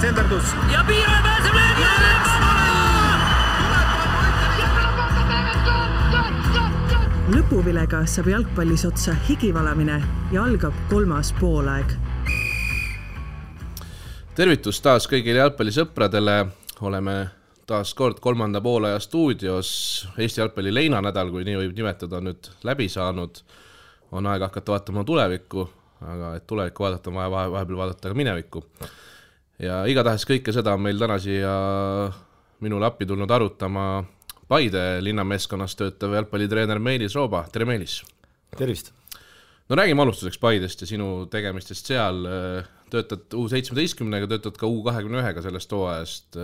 senderdus. Ja Piiraja pääseb löögi! Lõpuvilega saab jalgpallis otsa higivalamine ja algab 3. poolaeg. Tervitus taas kõigile jalgpallisõpradele. Oleme taas kord 3. poolaja stuudios. Eesti jalgpalli leinanädal, kui nii võib nimetada, on nüüd läbi saanud. On aeg hakata vaatama tulevikku, aga et tulevikku vaadata, on vaja vahepeal vaadata ka minevikku. Ja igatahes kõike seda on meil täna siia minule appi tulnud arutama Paide linnameeskonnas töötav jalgpallitreener Meelis Rooba. Tere Meelis! Tervist! No räägime alustuseks Paidest ja sinu tegemistest seal. Töötad U17-ga, töötad ka U21-ga sellest hooajast.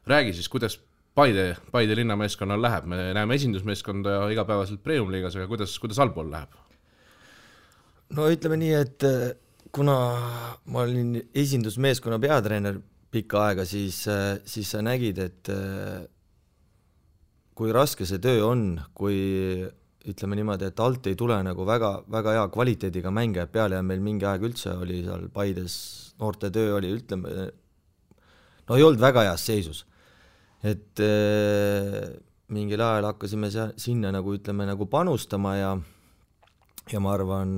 Räägi siis, kuidas Paide linnameeskonnal läheb. Me näeme esindusmeeskonda igapäevaselt Premium-liigas, aga kuidas allpool läheb? No ütleme nii, et kuna ma olin esindusmeeskonna peatreener pikka aega, siis sa nägid, et kui raske see töö on, kui ütleme niimoodi, et alt ei tule nagu väga hea kvaliteediga mänge peale ja meil mingi aeg üldse oli seal Paides noorte töö oli, ütleme, no ei olnud väga heas seisus. Et mingil ajal hakkasime sinna nagu, ütleme, nagu panustama ja ma arvan,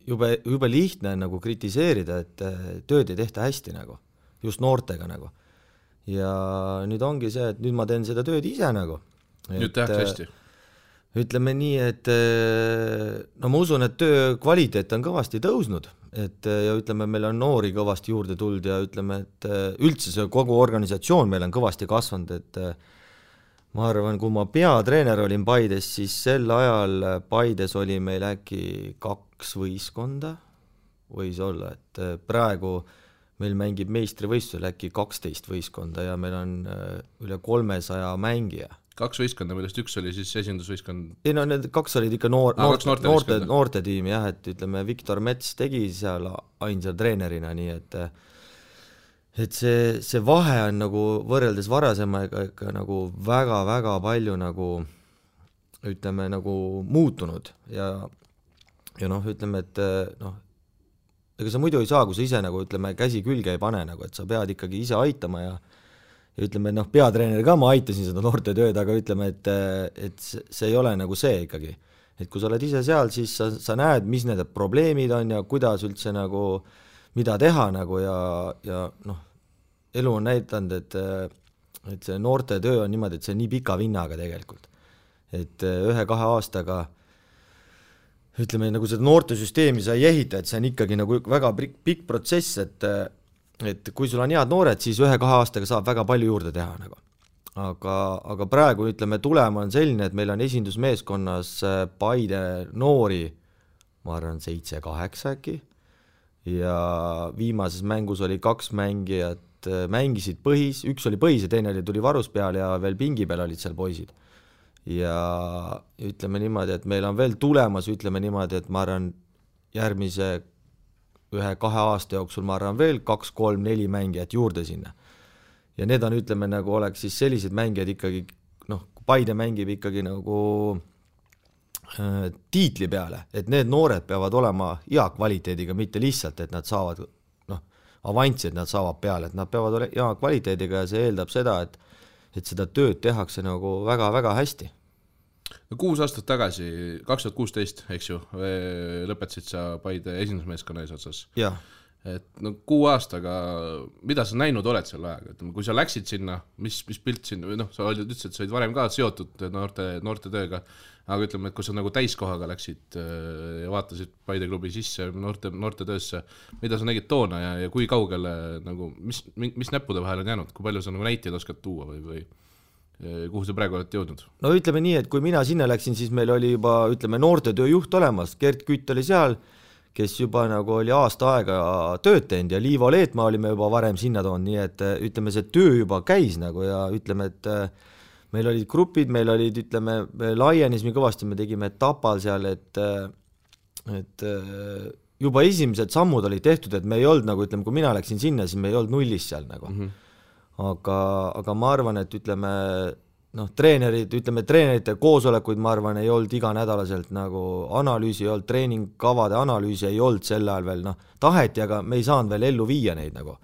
jube lihtne nagu kritiseerida, et tööd ei tehta hästi nagu, just noortega nagu. Ja nüüd ongi see, et nüüd ma teen seda tööd ise nagu. Nüüd tehakse hästi. Ütleme nii, et no ma usun, et töö kvaliteet on kõvasti tõusnud, et ja ütleme, meil on noori kõvasti juurde tuld ja ütleme, et üldse see kogu organisatsioon meil on kõvasti kasvanud, et ma arvan, kui ma peatreener olin Paides, siis sel ajal Paides oli meil äkki 2 võistkonda, võis olla, et praegu meil mängib meistrivõistlusel äkki 12 võistkonda ja meil on üle 300 mängija. 2 võistkonda, millest üks oli siis esindusvõistkond? Ei no need 2 olid ikka noorte tiim, jah, et ütleme, Viktor Mets tegi seal ainsa treenerina, nii et see vahe on nagu võrreldes varasemaga ikka nagu väga palju nagu ütleme nagu muutunud ja noh, ütleme, et noh, ega sa muidu ei saa, kui sa ise nagu ütleme, käsi külge ei pane nagu, et sa pead ikkagi ise aitama ja ütleme, noh, peatreener ka ma aitasin seda noorte tööd, aga ütleme, et see ei ole nagu see ikkagi. Et kui sa oled ise seal, siis sa näed, mis need probleemid on ja kuidas üldse nagu, mida teha nagu ja noh, elu on näidanud, et see noorte töö on niimoodi, et see on nii pika vinnaga tegelikult. Et 1-2 aastaga ütleme, nagu seda noorte süsteemi sa ei ehita, et see on ikkagi nagu väga pikk protsess, et kui sul on head noored, siis 1-2 aastaga saab väga palju juurde teha nagu. Aga praegu ütleme, tulema on selline, et meil on esindusmeeskonnas Paide noori, ma arvan, 7-8 äkki, ja viimases mängus oli 2 mängijat, mängisid põhis, üks oli põhis ja teine tuli varus peal ja veel pingi peal olid seal poisid. Ja ütleme niimoodi, et meil on veel tulemas, ütleme niimoodi, et ma arvan järgmise 1-2 aasta jooksul ma arvan veel 2, 3, 4 mängijat juurde sinna. Ja need on, ütleme, nagu oleks siis sellised mängijad ikkagi, noh, Paide mängib ikkagi nagu tiitli peale, et need noored peavad olema hea kvaliteediga, mitte lihtsalt, et nad saavad, noh, avanssi, et nad saavad peale, et nad peavad olema hea kvaliteediga ja see eeldab seda, et seda tööd tehakse nagu väga hästi. 6 aastat tagasi, 2016, eks ju, lõpetasid sa Paide esindusmeeskonna eesotsas. Jah. Et no 6 aastaga, mida sa näinud oled selle ajaga? Kui sa läksid sinna, mis pilt sinna, noh, sa ütlesid, et sa olid varem ka seotud noorte tööga, aga ütleme, et kui sa nagu täiskohaga läksid ja vaatasid Paide klubi sisse noorte töösse, mida sa nägid toona ja kui kaugele, nagu, mis näppude vahel on jäänud, kui palju sa nagu näiteid oskad tuua või kuhu sa praegu oled jõudnud? No ütleme nii, et kui mina sinna läksin, siis meil oli juba, ütleme, noorte tööjuht olemas, Gert Kütt oli seal, kes juba nagu oli aasta aega tööd teinud ja Liivo Leetmaa olime juba varem sinna toonud, nii et ütleme, see töö juba käis nagu ja ütleme, et meil olid grupid, meil olid, ütleme, laienismi kõvasti, me tegime Tapal seal, et juba esimesed sammud olid tehtud, et me ei olnud nagu, ütleme, kui mina läksin sinna, siis me ei olnud nullis seal nagu. Aga ma arvan, et ütleme, noh, treenerite koosolekuid, ma arvan, ei olnud iganädalaselt nagu analüüsi ei olnud, treeningkavade analüüsi ei olnud sel ajal veel, noh, taheti, aga me ei saanud veel ellu viia neid nagu.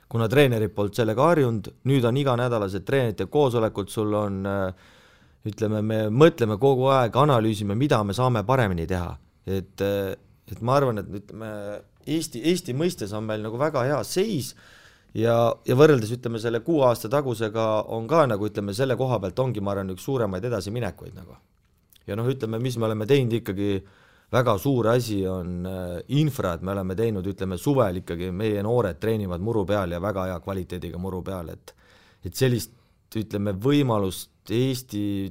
kuna treenerid polnud sellega harjunud, nüüd on iganädalased treenerite koosolekud, sul on ütleme, me mõtleme kogu aeg, analüüsime, mida me saame paremini teha, et ma arvan, et ütleme, Eesti mõistes on meil nagu väga hea seis ja võrreldes ütleme selle 6 aasta tagusega on ka nagu ütleme selle koha pealt ongi ma arvan üks suuremaid edasiminekuid nagu. Ja ütleme, mis me oleme teinud ikkagi väga suur asi on infra, et me oleme teinud ütleme suvel ikkagi meie noored treenivad muru peal ja väga hea kvaliteediga muru peal, et sellist ütleme võimalust Eesti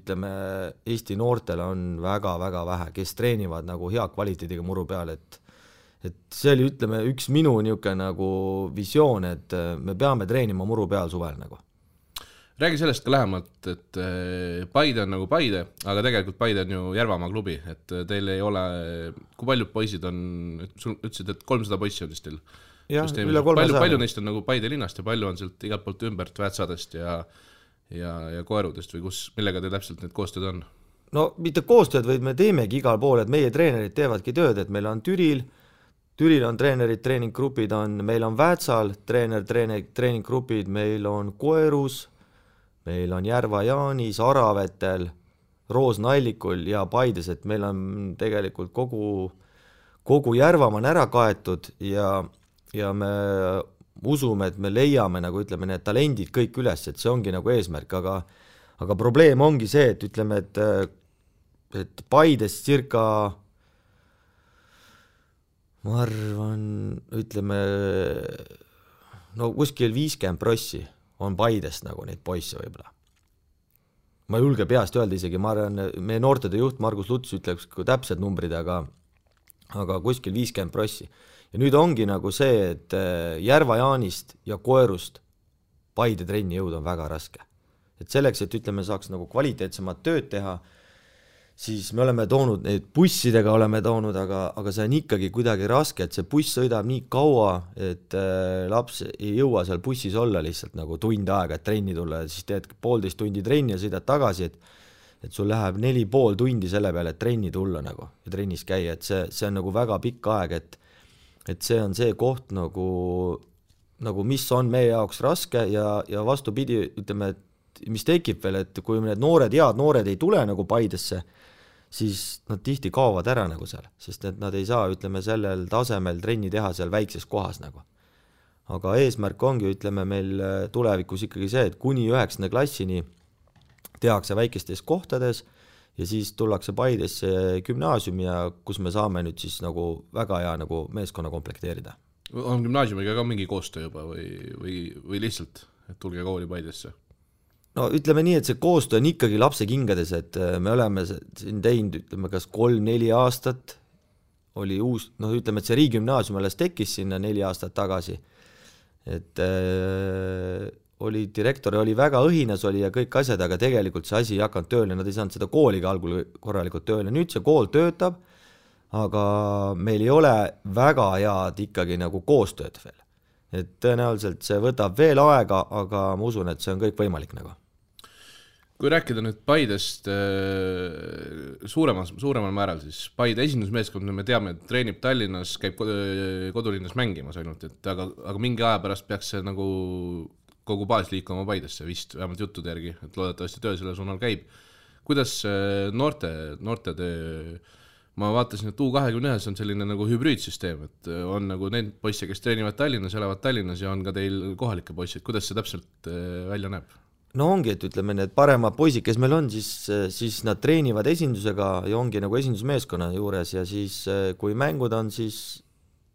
noortele on väga-väga vähe, kes treenivad nagu hea kvaliteediga muru peal, et see oli, ütleme, üks minu niisugune nagu visioon, et me peame treenima muru peal suvel nagu. Räägi sellest ka lähemalt, et Paide on nagu Paide, aga tegelikult Paide on ju Järvamaa klubi, et teil ei ole, kui paljud poisid on, sul ütlesid, et 300 poissi on vist teil? Jah, üle 300. Palju neist on nagu Paide linnast ja palju on sealt igalt poolt ümbert Väätsadest ja Koerudest või millega teil täpselt need koostööd on? No mitte koostööd, vaid me teemegi igal pool, et meie treenerid teevadki tööd, et meil on Türil on treenerid, treeninggrupid on, meil on Väätsal treeninggrupid, meil on Koerus, meil on Järva-Jaanis, Aravetel, Roosnallikul ja Paides, et meil on tegelikult kogu Järvamaa on ära kaetud ja me usume, et me leiame nagu ütleme need talendid kõik üles, et see ongi nagu eesmärk, aga probleem ongi see, et ütleme, et Paides circa ma arvan, ütleme, no kuskil 50 prossi on Paidest nagu neid poisse võib-olla. Ma ei julge peast öelda isegi, ma arvan, meie noortede juht Margus Luts ütleks täpsed numbrid, aga kuskil 50 prossi. Ja nüüd ongi nagu see, et Järva-Jaanist ja Koerust Paide trenni jõud on väga raske. Et selleks, et ütleme, saaks nagu kvaliteetsemat tööd teha, siis me oleme toonud, neid bussidega oleme toonud, aga see on ikkagi kuidagi raske, et see buss sõidab nii kaua, et laps ei jõua seal bussis olla lihtsalt nagu tund aega, et trenni tulla, siis teed 1,5 tundi trenni ja sõidad tagasi, et sul läheb 4,5 tundi selle peale, et trenni tulla nagu ja trennis käia, et see on nagu väga pikk aeg, et see on see koht nagu mis on meie jaoks raske ja vastupidi, ütleme, et mis tekib veel, et kui need head noored ei tule nagu Paidesse, siis nad tihti kaovad ära nagu seal, sest et nad ei saa, ütleme, sellel tasemel trenni teha seal väikses kohas nagu. Aga eesmärk ongi, ütleme, meil tulevikus ikkagi see, et kuni 9. klassini tehakse väikestes kohtades ja siis tullakse Paidesse gümnaasiumi ja kus me saame nüüd siis nagu väga hea nagu meeskonna komplekteerida. On gümnaasiumiga ka mingi koostöö juba või lihtsalt, et tulge kooli Paidesse? No ütleme nii, et see koostöö on ikkagi lapse kingades, et me oleme siin teinud, ütleme, kas 3-4 aastat oli uus, ütleme, et see riigigümnaasium alles tekkis sinna 4 aastat tagasi, et direktor oli väga õhinas oli ja kõik asjad, aga tegelikult see asi ei hakanud tööle, nad ei saanud seda kooliga algul korralikult tööle, nüüd see kool töötab, aga meil ei ole väga head ikkagi nagu koostööd veel, et tõenäoliselt see võtab veel aega, aga ma usun, et see on kõik võimalik nagu. Kui rääkida nüüd Paidest suuremal määral, siis Paide esindusmeeskond, me teame, et treenib Tallinnas, käib kodulinnas mängimas ainult, aga mingi aja pärast peaks see nagu kogu baas liikuma Paidesse vist, vähemalt juttude järgi, et loodetavasti töö selle suunal käib. Kuidas noorte töö, ma vaatasin, et U21 on selline nagu hübriidsüsteem, et on nagu need poisse, kes treenivad Tallinnas, elavad Tallinnas ja on ka teil kohalike poissid, kuidas see täpselt välja näeb? No ongi, et ütleme, need paremad poisid, kes meil on, siis nad treenivad esindusega ja ongi nagu esindusmeeskonna juures ja siis kui mängud on, siis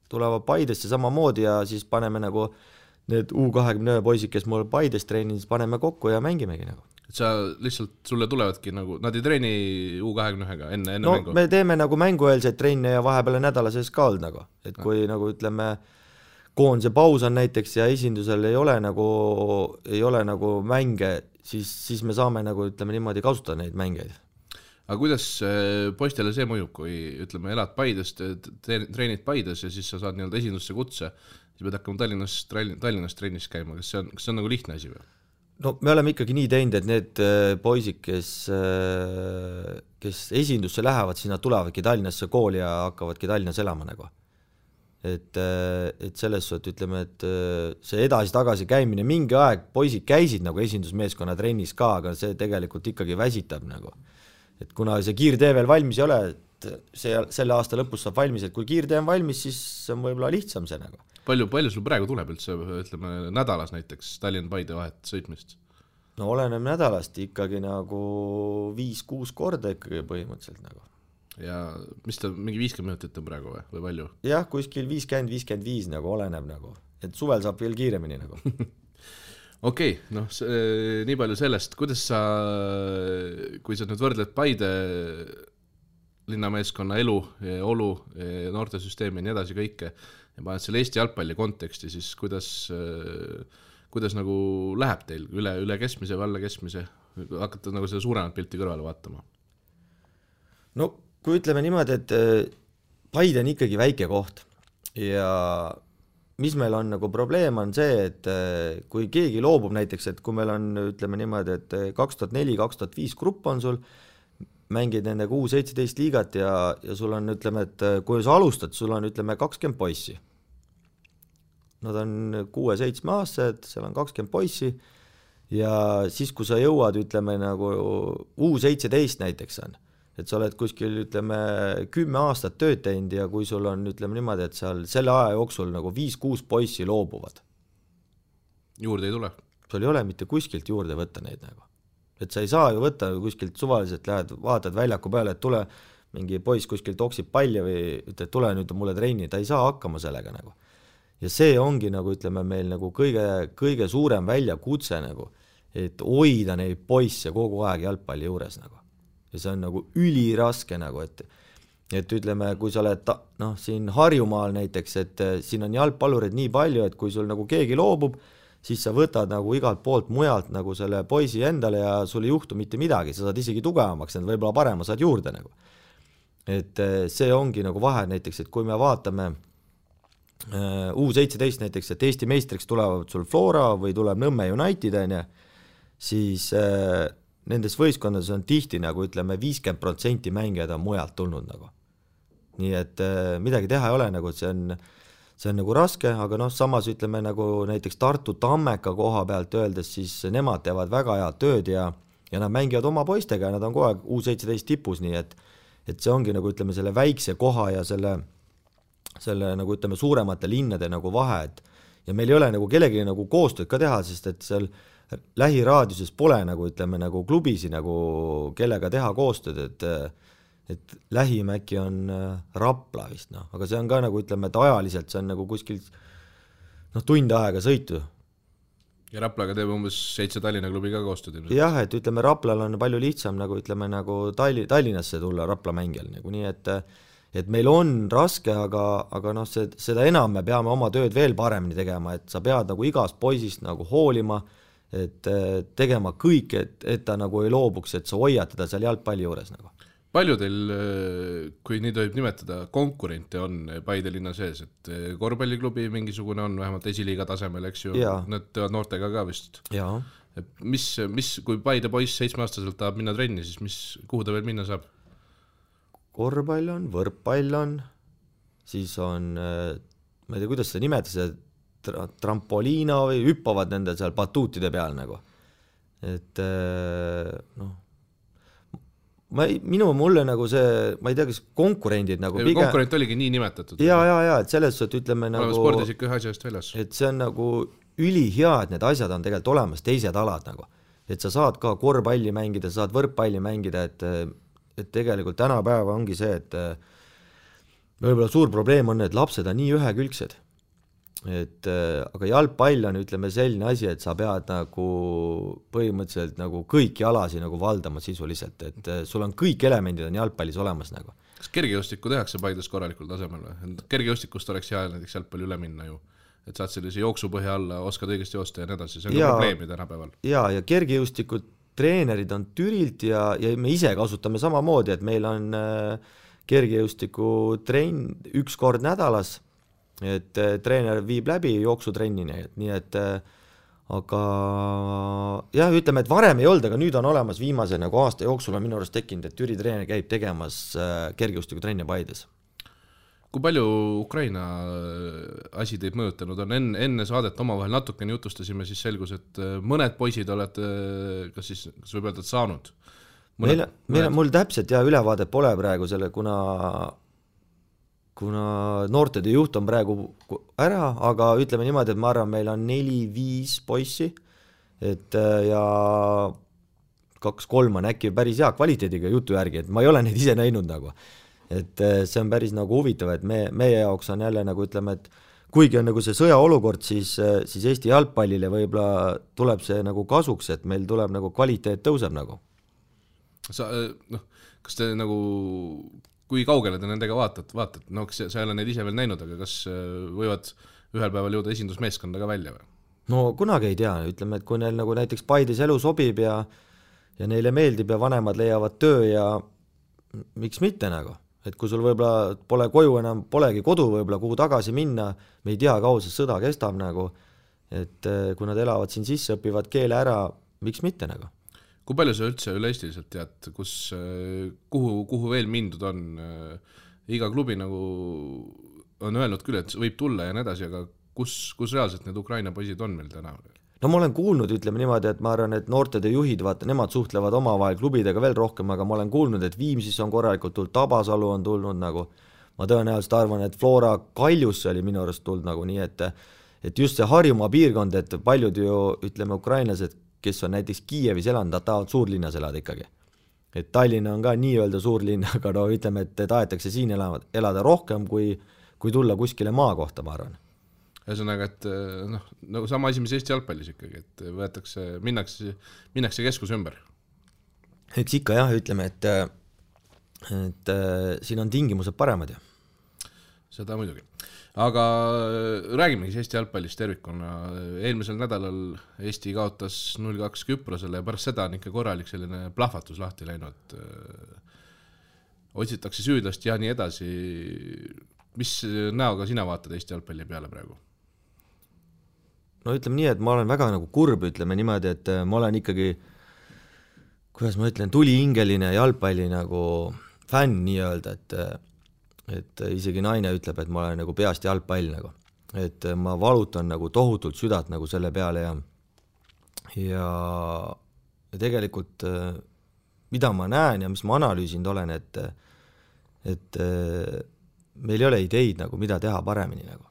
tulevad Paidesse samamoodi ja siis paneme nagu need U21 poisid, kes mul Paides treenin, siis paneme kokku ja mängimegi nagu. Et sa lihtsalt, sulle tulevadki nagu, nad ei treeni U21-ga enne mängu? Me teeme nagu mängueelseid trenne ja vahepeal nädala sees ka olnud nagu, et kui nagu ütleme, koondise paus on näiteks ja esindusel ei ole nagu mänge, siis me saame nagu ütleme niimoodi kasutada neid mängeid. Aga kuidas poistele see mõjub, kui ütleme elad Paides, treenid Paides ja siis sa saad nii-öelda esindusse kutse, siis pead hakkama Tallinnas trennis käima, kas see on nagu lihtne asi või? No me oleme ikkagi nii teinud, et need poisid, kes esindusse lähevad, siis nad tulevadki Tallinnasse kooli ja hakkavadki Tallinnas elama nagu. et selles suhtes ütleme, et see edasi-tagasi käimine, mingi aeg poisid käisid nagu esindusmeeskonna trennis ka, aga see tegelikult ikkagi väsitab nagu. Et kuna see kiirtee veel valmis ei ole, et selle aasta lõpus saab valmis, et kui kiirtee on valmis, siis on võib-olla lihtsam see nagu. Palju sul praegu tuleb üldse, ütleme nädalas näiteks Tallinn-Paide vahet sõitmist? No oleneb nädalast ikkagi nagu 5-6 korda ikkagi põhimõtteliselt nagu. Ja mis ta, mingi 50 minutit on praegu või palju? Jah, kuskil 50-55 nagu oleneb nagu, et suvel saab veel kiiremini nagu. Okei, noh, nii palju sellest, kuidas sa, kui sa nüüd võrdled Paide linnameeskonna elu, olu, noortesüsteemi ja nii edasi kõike ja paned selle Eesti jalgpalli konteksti, siis kuidas nagu läheb teil üle keskmise või alla keskmise, hakata nagu seda suuremat pilti kõrvale vaatama? No kui ütleme niimoodi, et Paide on ikkagi väike koht ja mis meil on nagu probleem on see, et kui keegi loobub näiteks, et kui meil on ütleme niimoodi, et 2004-2005 grupp on sul, mängid nendega U17 liigat ja sul on ütleme, et kui sa alustad, sul on ütleme 20 poissi. Nad on 6-7 aastased, seal on 20 poissi ja siis kui sa jõuad ütleme nagu U17 näiteks on, et sa oled kuskil ütleme 10 aastat tööd teinud ja kui sul on ütleme niimoodi, et seal selle aja jooksul nagu 5-6 poissi loobuvad. Juurde ei tule? Sul ei ole mitte kuskilt juurde võtta neid nagu. Et sa ei saa ju võtta kuskilt suvaliselt, lähed, vaatad väljaku peale, et tule mingi poiss kuskilt oksib palli või ütled, tule nüüd mulle trenni, ta ei saa hakkama sellega nagu. Ja see ongi nagu ütleme meil nagu kõige suurem väljakutse nagu, et hoida neid poisse kogu aeg jalgpalli juures nagu. Ja see on nagu üliraske nagu, et ütleme, kui sa oled siin Harjumaal näiteks, et siin on jalgpallurid nii palju, et kui sul nagu keegi loobub, siis sa võtad nagu igalt poolt mujalt nagu selle poisi endale ja sul ei juhtu mitte midagi, sa saad isegi tugevamaks, need võib-olla parema saad juurde nagu. Et see ongi nagu vahe näiteks, et kui me vaatame U17 näiteks, et Eesti meistriks tulevad sul Flora või tuleb Nõmme United, siis nendes võistkondades on tihti nagu ütleme 50% mängijad on mujalt tulnud nagu. Nii et midagi teha ei ole nagu, see on nagu raske, aga samas ütleme nagu näiteks Tartu Tammeka koha pealt öeldes, siis nemad teevad väga head tööd ja nad mängivad oma poistega ja nad on kogu aeg U17 tipus, nii et see ongi nagu ütleme selle väikse koha ja selle nagu ütleme suuremate linnade nagu vahe, ja meil ei ole nagu kellegi nagu koostööd ka teha, sest et seal lähiraadiuses pole nagu ütleme nagu klubisi nagu kellega teha koostööd, et lähim äkki on Rapla vist, aga see on ka nagu ütleme, et ajaliselt see on nagu kuskil tund aega sõitu. Ja Raplaga teeb umbes 7 Tallinna klubi ka koostööd. Jah, et ütleme Raplal on palju lihtsam nagu ütleme nagu Tallinnasse tulla Rapla mängijal nagu, nii et meil on raske, aga seda enam me peame oma tööd veel paremini tegema, et sa pead nagu igast poisist nagu hoolima, et tegema kõik, et ta nagu ei loobuks, et sa hoiad teda seal jalgpalli juures nagu. Palju teil, kui nii tohib nimetada, konkurente on Paide linna sees, et korvpalliklubi mingisugune on vähemalt esiliiga tasemel, eks ju, nad teevad noortega ka vist. Jaa. Mis, kui Paide poiss 7-aastaselt tahab minna trenni, siis kuhu ta veel minna saab? Korvpall on, võrkpall on, siis on, ma ei tea, kuidas seda nimetada, see trampoliina või hüppavad nende seal batuutide peal nagu. Et mulle nagu see, ma ei tea, kas konkurendid nagu pigem... Konkurent oligi nii nimetatud. Ja, et selles suhtes ütleme nagu... Spordis ikka ühe asjast väljas. Et see on nagu ülihea, et need asjad on tegelikult olemas, teised alad nagu. Et sa saad ka korvpalli mängida, sa saad võrkpalli mängida, et tegelikult tänapäeva ongi see, et võib-olla suur probleem on, et lapsed on nii ühekülgsed. Aga jalgpall on ütleme selline asi, et sa pead nagu põhimõtteliselt nagu kõiki alasi nagu valdama sisuliselt, et sul on kõik elemendid on jalgpallis olemas nagu. Kas kergejõustikku tehakse Paides korralikul tasemel või? Kergejõustikust oleks hea näiteks jalgpalli üle minna ju, et saad sellise jooksupõhja alla, oskad õigesti joosta ja nii edasi, see on ka probleemi tänapäeval. Ja kergejõustikud treenerid on Türilt ja me ise kasutame samamoodi, et meil on kergejõustiku trenn 1 kord nädalas, et treener viib läbi jooksutrennini, nii et aga jah, ütleme, et varem ei olnud, aga nüüd on olemas viimase nagu aasta jooksul on minu arust tekkinud, et Türi treener käib tegemas kergejõustiku trenni Paides. kui palju Ukraina asi teid mõjutanud on? Enne saadet omavahel natukene jutustasime, siis selgus, et mõned poisid olete, kas võib öelda, et saanud? Mul täpselt ülevaade pole praegu selle, kuna noortede juht on praegu ära, aga ütleme niimoodi, et ma arvan, meil on 4-5 poissi, et ja 2-3 on äkki päris hea kvaliteediga jutu järgi, et ma ei ole neid ise näinud nagu. Et see on päris nagu huvitav, et meie jaoks on jälle nagu ütleme, et kuigi on nagu see sõjaolukord, siis Eesti jalgpallile võib-olla tuleb see nagu kasuks, et meil tuleb nagu kvaliteet tõuseb nagu. Kas te nagu, kui kaugele te nendega vaatate? No sa ei ole neid ise veel näinud, aga kas võivad ühel päeval jõuda esindusmeeskonda ka välja või? No kunagi ei tea, ütleme, et kui neil nagu näiteks Paides elu sobib ja neile meeldib ja vanemad leiavad töö ja miks mitte nagu, et kui sul võib-olla pole koju enam, polegi kodu võib-olla kuhu tagasi minna, me ei tea, kaua see sõda kestab nagu, et kui nad elavad siin sisse, õpivad keele ära, miks mitte nagu. Kui palju sa üldse üle-eestiliselt tead, kuhu veel mindud on? Iga klubi nagu on öelnud küll, et võib tulla ja nii edasi, aga kus reaalselt need Ukraina poisid on meil täna? No ma olen kuulnud, ütleme niimoodi, et ma arvan, et noortede juhid, vaata, nemad suhtlevad omavahel klubidega veel rohkem, aga ma olen kuulnud, et Viimsis on korralikult tulnud, Tabasalu on tulnud nagu, ma tõenäoliselt arvan, et Flora Kaljusse oli minu arust tulnud nagu nii, et just see Harjumaa piirkond, et paljud ju, ütleme, ukrainlased, kes on näiteks Kiievis elanud, nad tahavad suurlinnas elada ikkagi. Et Tallinna on ka nii-öelda suurlinn, aga no ütleme, et tahetakse siin elada rohkem, kui tulla kuskile maa kohta, ma arvan. Ühesõnaga, et nagu sama asi, mis Eesti jalgpallis ikkagi, et minnakse keskus ümber. Eks ikka jah, ütleme, et siin on tingimused paremad ja. Seda muidugi. Aga räägimegi Eesti jalgpallist tervikuna. Eelmisel nädalal Eesti kaotas 0-2 Küprosele ja pärast seda on ikka korralik selline plahvatus lahti läinud. Otsitakse süüdlast ja nii edasi. Mis näoga sina vaatad Eesti jalgpalli peale praegu? No ütleme nii, et ma olen väga nagu kurb, ütleme niimoodi, et ma olen ikkagi, kuidas ma ütlen, tulihingeline jalgpalli nagu fänn nii-öelda, et isegi naine ütleb, et ma olen nagu peast jalgpall nagu, et ma valutan nagu tohutult südant nagu selle peale ja tegelikult mida ma näen ja mis ma analüüsinud olen, et meil ei ole ideid nagu mida teha paremini nagu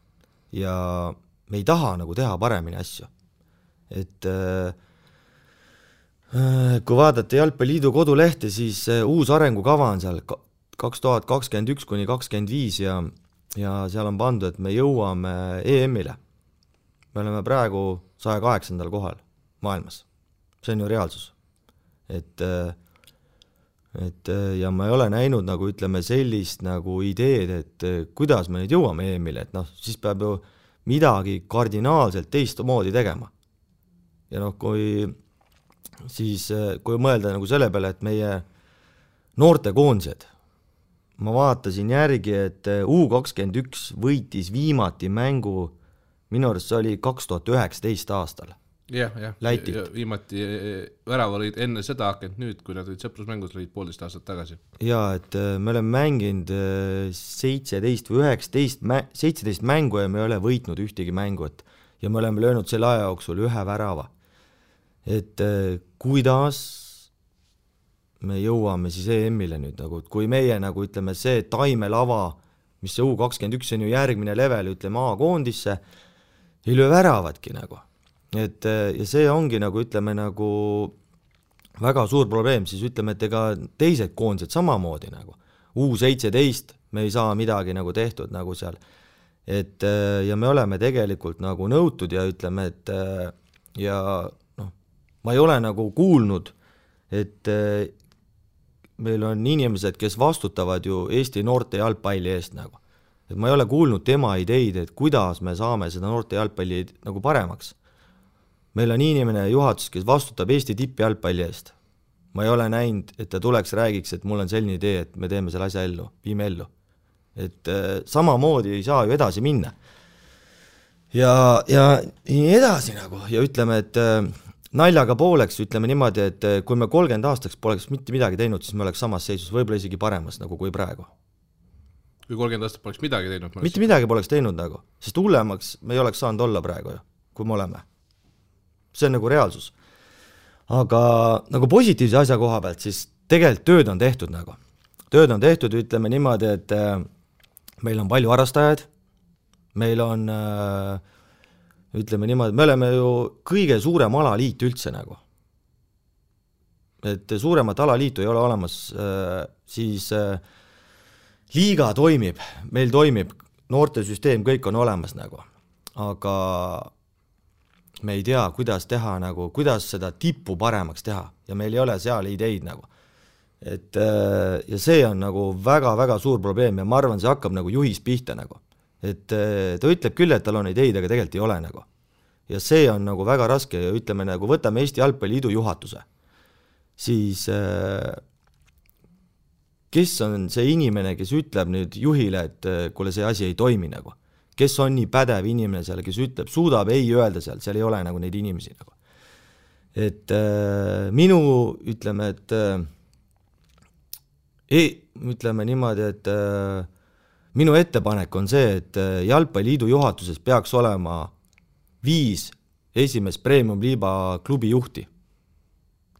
ja me ei taha nagu teha paremini asju, et kui vaadata Jalgpalliliidu kodulehte, siis uus arengukava on seal 2021–2025 ja seal on pandud, et me jõuame EM-ile. Me oleme praegu 108. kohal maailmas. See on ju reaalsus. Et ja ma ei ole näinud nagu ütleme sellist nagu ideed, et kuidas me nüüd jõuame EM-ile, et siis peab ju midagi kardinaalselt teistmoodi tegema. Ja kui mõelda nagu selle peale, et meie noortekoondised, ma vaatasin järgi, et U21 võitis viimati mängu, minu arust see oli 2019 aastal. Jah, viimati väravalid enne seda hakanud nüüd, kui nad olid sõprusmängus, olid 1,5 aastat tagasi. Ja, et me oleme mänginud 17 või 17 mängu ja me ei ole võitnud ühtegi mängut ja me oleme löönud selle aja jooksul 1 värava. Et kuidas me jõuame siis EM-ile nüüd, nagu, kui meie nagu ütleme see taimelava, mis see U21 on ju järgmine level, ütleme A-koondisse, ei löö väravatki nagu. Et, ja see ongi nagu ütleme nagu väga suur probleem, siis ütleme, et ega teised koondised samamoodi nagu U17 me ei saa midagi nagu tehtud nagu seal, et ja me oleme tegelikult nagu nõutud ja ütleme, et ja ma ei ole nagu kuulnud, et meil on inimesed, kes vastutavad ju Eesti noorte jalgpalli eest nagu, et ma ei ole kuulnud tema ideid, et kuidas me saame seda noorte jalgpalli nagu paremaks. Meil on inimene juhatus, kes vastutab Eesti tippjalgpalli eest. Ma ei ole näinud, et ta tuleks räägiks, et mul on selline idee, et me teeme selle asja ellu, viime ellu. Et samamoodi ei saa ju edasi minna. Ja nii edasi nagu, ja ütleme, et naljaga pooleks, ütleme niimoodi, et kui me 30 aastaks poleks mitte midagi teinud, siis me oleks samas seisus, võib-olla isegi paremas nagu kui praegu. kui 30 aastat poleks midagi teinud. Mitte midagi poleks teinud nagu, sest hullemaks me ei oleks saanud olla praegu ju, kui me oleme. See on nagu reaalsus. Aga nagu positiivse asja koha pealt, siis tegelikult tööd on tehtud nagu. Tööd on tehtud, ütleme niimoodi, et meil on palju harrastajaid, meil on, ütleme niimoodi, me oleme ju kõige suurem alaliit üldse nagu. Et suuremat alaliitu ei ole olemas, siis liiga toimib, meil toimib, noortesüsteem, kõik on olemas nagu, aga me ei tea, kuidas teha nagu, kuidas seda tippu paremaks teha ja meil ei ole seal ideid nagu. Et, ja see on nagu väga-väga suur probleem ja ma arvan, see hakkab nagu juhis pihta nagu. Et ta ütleb küll, et tal on ideid, aga tegelikult ei ole nagu. Ja see on nagu väga raske ja ütleme nagu, võtame Eesti Jalgpalliliidu juhatuse. Siis kes on see inimene, kes ütleb nüüd juhile, et kuule see asi ei toimi nagu. Kes on nii pädev inimene seal, kes ütleb, suudab ei öelda seal ei ole nagu neid inimesi nagu. Et minu, ütleme, ütleme niimoodi, et minu ettepanek on see, et Jalgpalliliidu juhatuses peaks olema 5 esimest premium-liiba klubi juhti,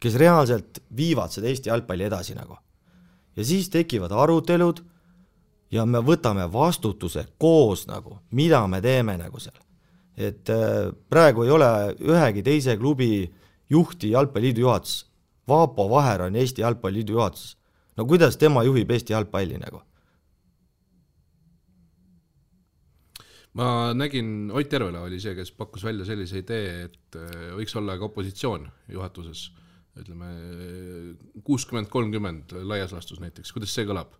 kes reaalselt viivad seda Eesti jalgpalli edasi nagu. Ja siis tekivad arutelud ja me võtame vastutuse koos nagu, mida me teeme nagu seal. Et praegu ei ole ühegi teise klubi juhti Jalgpalliliidu juhatus. Vaapo Vaher on Eesti Jalgpalliliidu juhatus. No kuidas tema juhib Eesti jalgpalli nagu? Ma nägin, Ott Järvela oli see, kes pakkus välja sellise idee, et võiks olla ka opositsioon juhatuses. Ütleme 60-30 laias lastus näiteks, kuidas see kõlab?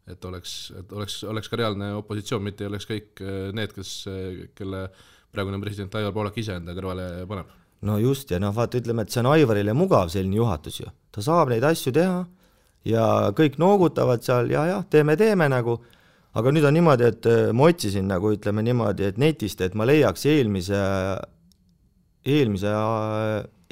Et oleks ka reaalne opositsioon, mitte ei oleks kõik need, kelle praegune president Aivar Poolak ise enda kõrvale paneb. No just, ja vaata, ütleme, et see on Aivarile mugav selline juhatus ju. Ta saab neid asju teha ja kõik noogutavad seal ja teeme nagu, aga nüüd on niimoodi, et ma otsisin nagu, ütleme niimoodi, et netist, et ma leiaks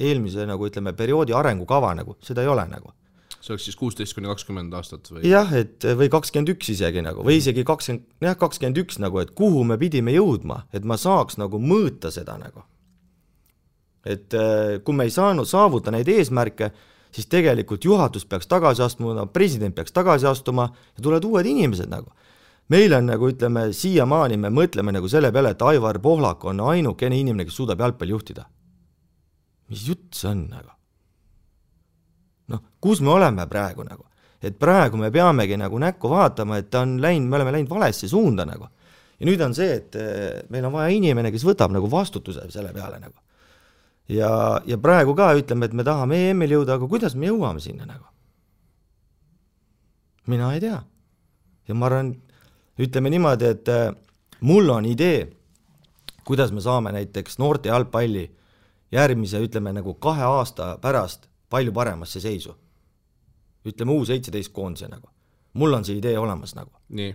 eelmise nagu ütleme perioodi arengukava nagu, seda ei ole nagu. See oleks siis 16-20 aastat või? Jah, et või 21 isegi nagu, või isegi 21 nagu, et kuhu me pidime jõudma, et ma saaks nagu mõõta seda nagu. Et kui me ei saanud saavuta neid eesmärke, siis tegelikult juhatus peaks tagasi astuma, president peaks tagasi astuma ja tulevad uued inimesed nagu. Meil on nagu ütleme, siiamaani me mõtleme nagu selle peale, et Aivar Pohlak on ainukene inimene, kes suudab jalgpalli juhtida. Mis jutt see on nagu? Noh, kus me oleme praegu nagu? Et praegu me peamegi nagu näkku vaatama, et me oleme läinud valesse suunda nagu. Ja nüüd on see, et meil on vaja inimene, kes võtab nagu vastutuse selle peale nagu. Ja praegu ka ütleme, et me tahame EM-il jõuda, aga kuidas me jõuame sinna nagu? Mina ei tea. Ja ma arvan, ütleme niimoodi, et mul on idee, kuidas me saame näiteks noorte jalgpalli järgmise, ütleme nagu 2 aasta pärast palju paremasse seisu. Ütleme U17 koondise nagu. Mul on see idee olemas nagu. Nii.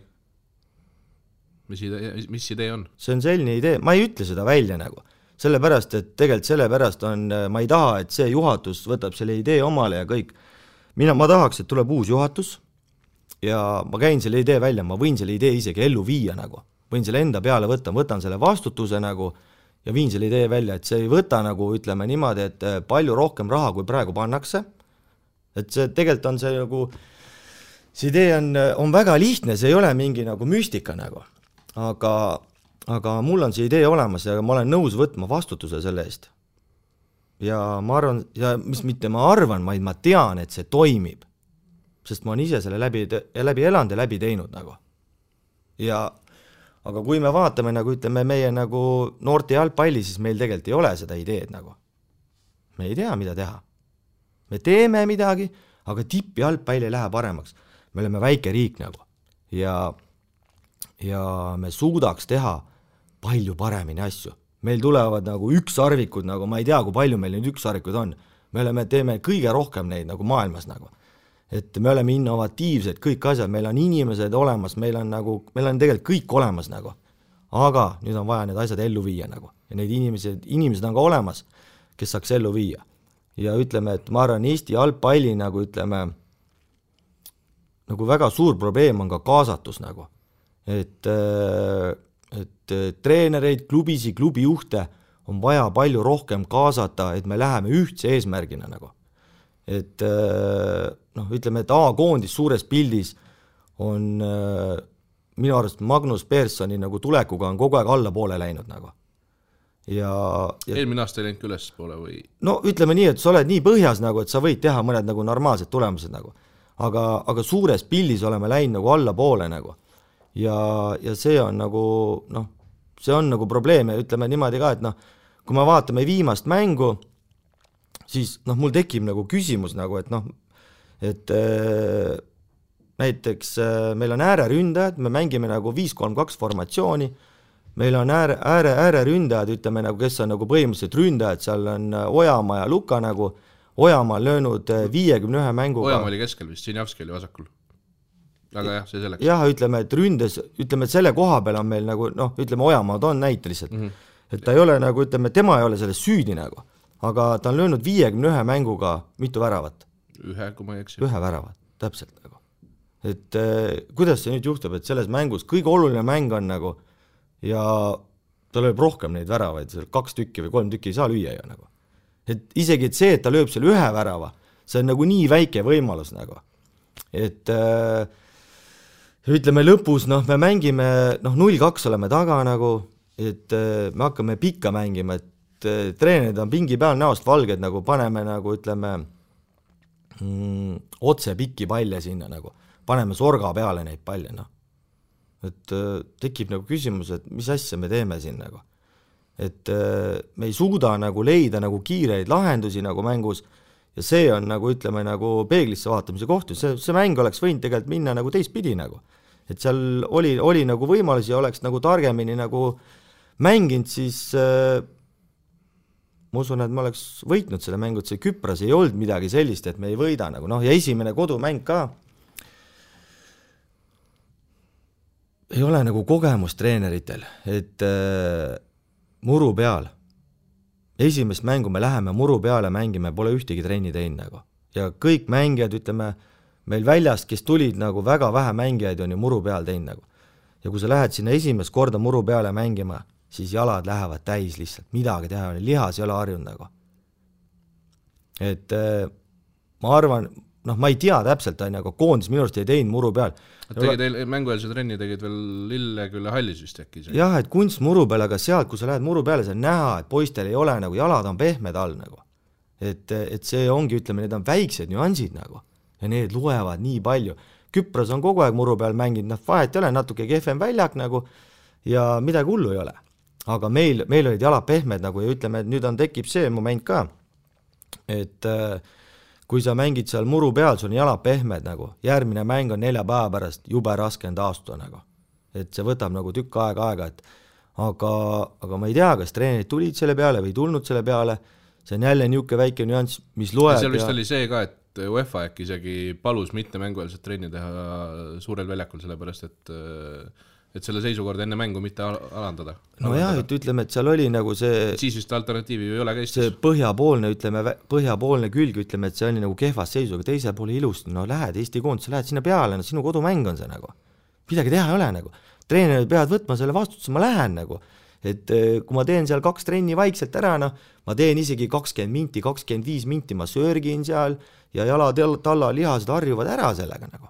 Mis idee on? See on selline idee, ma ei ütle seda välja nagu. Sellepärast, et tegelikult sellepärast on, ma ei taha, et see juhatus võtab selle idee omale ja kõik. Ma tahaks, et tuleb uus juhatus ja ma käin selle idee välja, ma võin selle idee isegi ellu viia nagu. Võin selle enda peale võtan selle vastutuse nagu ja viin selle idee välja, et see ei võta nagu, ütleme niimoodi, et palju rohkem raha, kui praegu pannakse. Et see tegelikult on see nagu, see idee on väga lihtne, see ei ole mingi nagu müstika nagu. Aga mul on see idee olemas ja ma olen nõus võtma vastutuse selle eest. Ja ma arvan, ja mis mitte ma arvan, vaid ma tean, et see toimib. Sest ma olen ise selle läbi elanud ja läbi teinud nagu. Aga kui me vaatame nagu ütleme meie nagu noorte jalgpalli, siis meil tegelikult ei ole seda ideed nagu. Me ei tea, mida teha. Me teeme midagi, aga tipp jalgpalli ei lähe paremaks. Me oleme väike riik nagu. Ja me suudaks teha palju paremini asju. Meil tulevad nagu ükssarvikud, nagu ma ei tea, kui palju meil neid ükssarvikud on. Me teeme kõige rohkem neid nagu maailmas nagu. Et me oleme innovatiivsed, kõik asjad, meil on inimesed olemas, meil on tegelikult kõik olemas nagu. Aga nüüd on vaja need asjad ellu viia nagu. Ja need inimesed on ka olemas, kes saaks ellu viia. Ja ütleme, et ma arvan, Eesti jalgpalli nagu ütleme, nagu väga suur probleem on ka kaasatus nagu. et treenereid, klubisi, klubijuhte on vaja palju rohkem kaasata, et me läheme ühtse eesmärgina nagu. Et ütleme, et A-koondis suures pildis on minu arust Magnus Perssoni nagu tulekuga on kogu aeg alla poole läinud nagu. Ja eelmine aasta ei läinud üles poole või? No ütleme nii, et sa oled nii põhjas nagu, et sa võid teha mõned nagu normaalsed tulemused nagu. Aga suures pildis oleme läinud nagu alla poole nagu. Ja see on nagu, see on nagu probleem ja ütleme niimoodi ka, et kui me vaatame viimast mängu, siis mul tekib nagu küsimus nagu, et näiteks meil on ääreründajad, me mängime nagu 5-3-2 formatsiooni, meil on ääreründajad, ütleme nagu, kes on nagu põhimõtteliselt ründajad, seal on Ojamaa ja Luka nagu, Ojamaa on löönud 51 mänguga. Ojamaa oli keskel vist, Sinjavski oli vasakul. Aga jah, see selleks. Jah, ütleme, et ründes, ütleme, et selle koha peal on meil nagu, ütleme, Ojamaa on näite lihtsalt. Et ta ei ole nagu, ütleme, tema ei ole selles süüdi nagu, aga ta on löönud 51 mänguga mitu väravat. Kui ma ei eksi. Ühe väravat, täpselt nagu. Et kuidas see nüüd juhtub, et selles mängus kõige oluline mäng on nagu ja ta lööb rohkem neid väravaid, 2 tükki või 3 tükki ei saa lüüa ju nagu. Et isegi et see, et ta lööb selle ühe värava, see on nagu nii väike võimalus nagu. Et ütleme lõpus, me mängime, 0-2 oleme taga nagu, et me hakkame pikka mängima, et treenerid on pingi peal näost valged nagu, paneme nagu, ütleme, otse pikki palle sinna nagu, paneme sorga peale neid palle, et tekib nagu küsimus, et mis asja me teeme siin nagu, et me ei suuda nagu leida nagu kiireid lahendusi nagu mängus ja see on nagu, ütleme, nagu peeglisse vaatamise kohtu, see mäng oleks võinud tegelikult minna nagu teistpidi nagu, et seal oli nagu võimalusi ja oleks nagu targemini nagu mänginud, siis ma usun, et ma oleks võitnud selle mängu, et see Küpras ei olnud midagi sellist, et me ei võida nagu, ja esimene kodumäng ka ei ole nagu kogemus treeneritel, et muru peal, esimest mängu me läheme muru peale mängime, pole ühtegi trenni teinud nagu. Ja kõik mängijad, ütleme, meil väljast, kes tulid nagu väga vähe mängijaid on ju muru peal teinud nagu. Ja kui sa lähed sinna esimest korda muru peale mängima, siis jalad lähevad täis lihtsalt, midagi teha, lihas ei ole harjunud nagu. Et ma arvan, ma ei tea täpselt, aga koondis minu arust ei teinud muru peal. Mängueelse trenni tegid veel Lillekülle hallis vist äkki? Jah, et kunst muru peal, aga sealt, kui sa lähed muru peale, sa näha, et poistel ei ole nagu, jalad on pehmed all nagu. Et see ongi, ütleme, need on väiksed nüansid nagu ja need loevad nii palju. Küpras on kogu aeg muru peal mänginud, vahet ei ole, natuke kehvem väljak nagu ja midagi hullu ei ole. Aga meil olid jalad pehmed nagu ja ütleme, et nüüd tekib see moment ka, et kui sa mängid seal muru peal, sul on jalad pehmed nagu, järgmine mäng on 4 päeva pärast, jube raske on taastuda nagu. Et see võtab nagu tükk aega, et aga ma ei tea, kas treenerid tulid selle peale või tulnud selle peale, see on jälle niuke väike nüanss, mis loeb. Seal vist oli see ka, et UEFA äkki isegi palus mitte mängueelset trenni teha suurel väljakul, sellepärast, et selle seisukorda enne mängu mitte alandada. No jah, et ütleme, et seal oli nagu see siis vist alternatiivi ei ole ka Eestis. See põhjapoolne külg, ütleme, et see oli nagu kehvas seisu, aga teise poole ilusti, lähed Eesti koondise, lähed sinna peale, sinu kodumäng on see nagu. Midagi teha ei ole nagu. Treenerid peavad võtma selle vastutuse, ma lähen nagu. Et kui ma teen seal 2 trenni vaikselt ära, ma teen isegi 20 minti, 25 minti, ma sörgin seal ja jalad talla lihased harjuvad ära sellega nagu.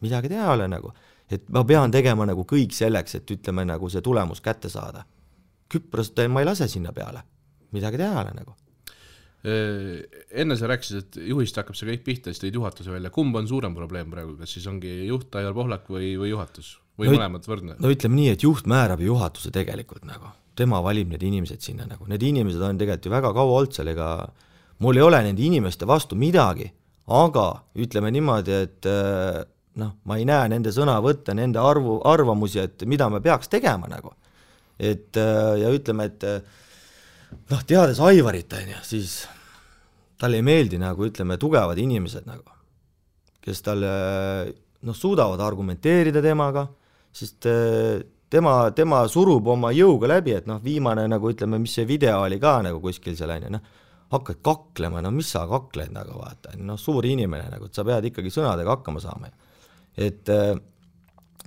Midagi teha ei ole nagu. Et ma pean tegema nagu kõik selleks, et ütleme nagu see tulemus kätte saada. Küprast ma ei lase sinna peale. Midagi teha ole nagu. Enne sa rääkisid, et juhist hakkab see kõik pihta, siis tõid juhatuse välja. Kumb on suurem probleem praegu? Kas siis ongi juht Aivar Pohlak või juhatus? Või mõlemad võrdne? No ütleme nii, et juht määrab juhatuse tegelikult nagu. Tema valib need inimesed sinna nagu. Need inimesed on tegelikult ju väga kaua olnud seal, ega mul ei ole nende inimeste vastu midagi, aga ütleme niimoodi, et ma ei näe nende sõna võtta, nende arvamusi, et mida me peaks tegema nagu. Et ja ütleme, et teades Aivarit, siis talle ei meeldi nagu, ütleme, tugevad inimesed nagu, kes talle suudavad argumenteerida temaga, sest tema surub oma jõuga läbi, et viimane nagu, ütleme, mis see video oli ka nagu kuskil seal on, hakkad kaklema, mis sa kakled nagu vaata, suur inimene nagu, et sa pead ikkagi sõnadega hakkama saama. Et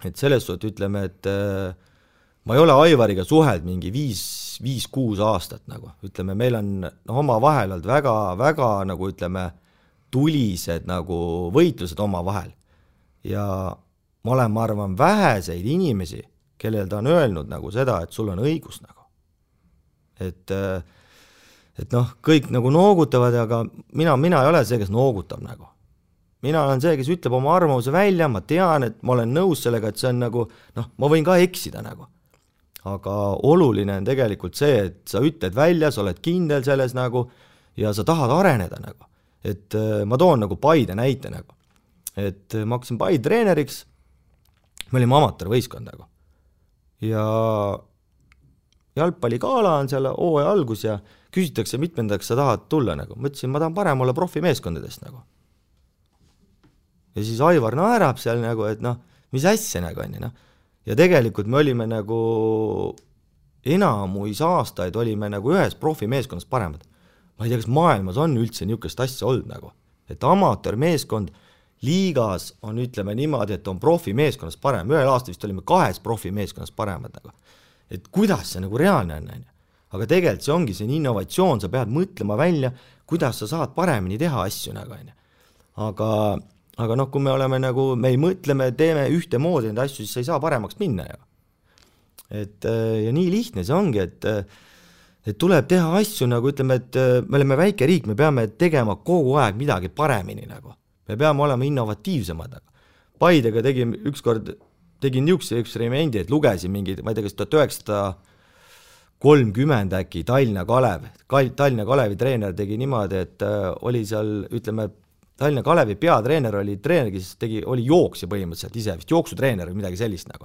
et selles suhtes ütleme, et ma ei ole Aivariga suheld mingi 5-6 aastat nagu, ütleme, meil on oma vahel olnud väga nagu ütleme, tulised nagu võitlused oma vahel ja ma olen, ma arvan, väheseid inimesi, kellel ta on öelnud nagu seda, et sul on õigus nagu. Et noh, kõik nagu noogutavad, aga mina ei ole see, kes noogutab nagu. Mina olen see, kes ütleb oma arvamuse välja, ma tean, et ma olen nõus sellega, et see on nagu, noh, ma võin ka eksida nagu. Aga oluline on tegelikult see, et sa ütled välja, sa oled kindel selles nagu ja sa tahad areneda nagu. Et ma toon nagu Paide näite nagu. Et ma hakkasin Paide treeneriks, me olime amatöörvõistkond nagu. Ja jalgpalligala on seal hooaja algus ja küsitakse, mitmendaks sa tahad tulla nagu. Ma ütlesin, ma tahan parem olla profimeeskondadest nagu. Ja siis Aivar naerab seal nagu, et noh, mis asja nagu on, noh. Ja tegelikult me olime nagu enamuis aastaid olime nagu ühes profimeeskonnas paremad. Ma ei tea, kas maailmas on üldse niisugust asja olnud nagu. Et amatöörmeeskond liigas on, ütleme niimoodi, et on profimeeskonnas parem. Ühel aastal vist olime 2 profimeeskonnas paremad nagu. Et kuidas see nagu reaalne on. Aga tegelikult see ongi see innovatsioon, sa pead mõtlema välja, kuidas sa saad paremini teha asju nagu on. Aga noh, kui me oleme nagu, me ei mõtle, me teeme ühte moodi neid asju, siis sa ei saa paremaks minna ju. Ja nii lihtne see ongi, et tuleb teha asju nagu ütleme, et me oleme väike riik, me peame tegema kogu aeg midagi paremini nagu. Me peame olema innovatiivsemad. Paidega tegin niisuguse eksperimendi, et lugesin mingid, ma ei tea, kas 1930 äkki Tallinna Kalevi treener tegi niimoodi, et oli seal, ütleme, Tallinna Kalevi peatreener oli treener, kes oli jooksja põhimõtteliselt ise, vist jooksutreener või midagi sellist nagu.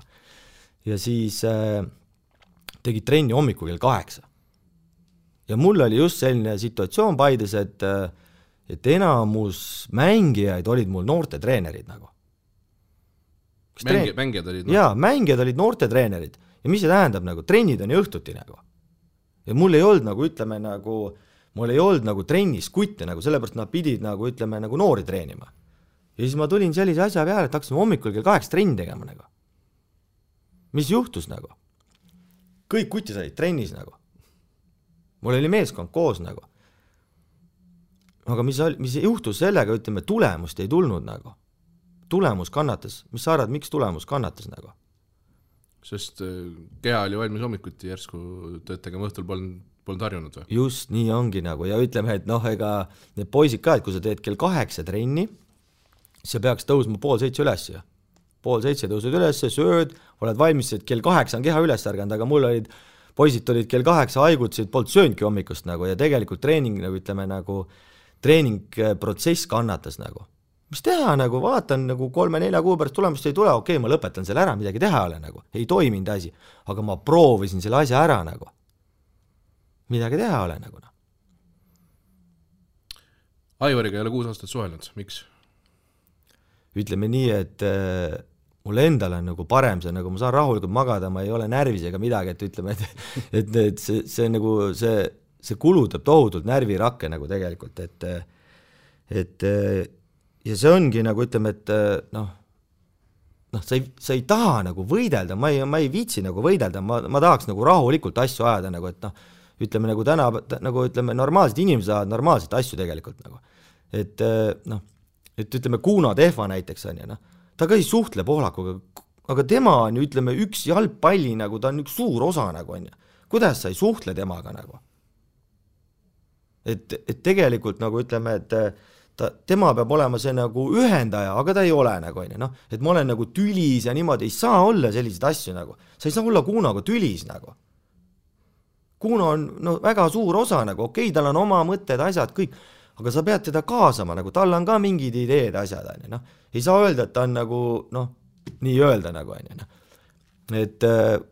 Ja siis tegi trenni hommikul kell 8. Ja mul oli just selline situatsioon Paides, et enamus mängijaid olid mul noorte treenerid nagu. Mängijad olid? Jaa, mängijad olid noorte treenerid. Ja mis see tähendab nagu? Trennid on ju õhtuti nagu. Ja mul ei olnud nagu, ütleme nagu, mul ei olnud nagu trennis kutte nagu, sellepärast nad pidid nagu, ütleme, nagu noori treenima. Ja siis ma tulin sellise asja peale, et hakkasin hommikul kell 8 trenni tegema nagu. Mis juhtus nagu? Kõik kutis olid trennis nagu. Mul oli meeskond koos nagu. Aga mis juhtus sellega, ütleme, tulemust ei tulnud nagu. Tulemus kannatas. Mis sa arvad, miks tulemus kannatas nagu? Sest keha oli valmis hommikuti järsku tööd tegema, õhtul polnud harjunud või? Just nii ongi nagu ja ütleme, et noh, ega need poisid ka, et kui sa teed kell 8 trenni, see peaks tõusma 6:30 üles ja 6:30 tõusud üles, sööd, oled valmis, et kell 8 on keha üles ärganud, aga mul olid, poisid olid kell 8 haigutasid, polnud sööndki hommikust nagu ja tegelikult treening, nagu ütleme, nagu treeningprotsess kannatas nagu. Mis teha nagu, vaatan nagu 3-4 kuu pärast tulemust ei tule, okei, ma lõpetan selle ära, midagi teha ole nagu, ei toiminud asi, aga ma proovisin selle asja ära nagu. Midagi teha ole nagu. Aivariga ei ole 6 aastat suhelnud, miks? Ütleme nii, et mul endal on nagu parem see, nagu ma saan rahulikult magada, ma ei ole närvis ega midagi, et ütleme, et see nagu, see kulutab tohutult närvirakke nagu tegelikult, et ja see ongi nagu ütleme, et noh, sa ei taha nagu võidelda, ma ei viitsi nagu võidelda, ma tahaks nagu rahulikult asju ajada nagu, et noh, ütleme nagu täna, nagu ütleme, normaalsed inimesed ajavad normaalseid asju tegelikult nagu. Et noh, et ütleme Kuno Tehva näiteks on ja noh, ta ka ei suhtle Pohlakuga, aga tema on ju ütleme üks jalgpalli nagu, ta on üks suur osa nagu on ja. Kuidas sa ei suhtle temaga nagu? Et tegelikult nagu ütleme, et tema peab olema see nagu ühendaja, aga ta ei ole nagu on ja noh, et ma olen nagu tülis ja niimoodi ei saa olla selliseid asju nagu. Sa ei saa olla Kunoga tülis nagu. Kuno on no, väga suur osa nagu, okei, tal on oma mõtted, asjad, kõik, aga sa pead teda kaasama nagu, tal on ka mingid ideed, asjad on ja noh, ei saa öelda, et ta on nagu noh, nii öelda nagu on ja noh. Et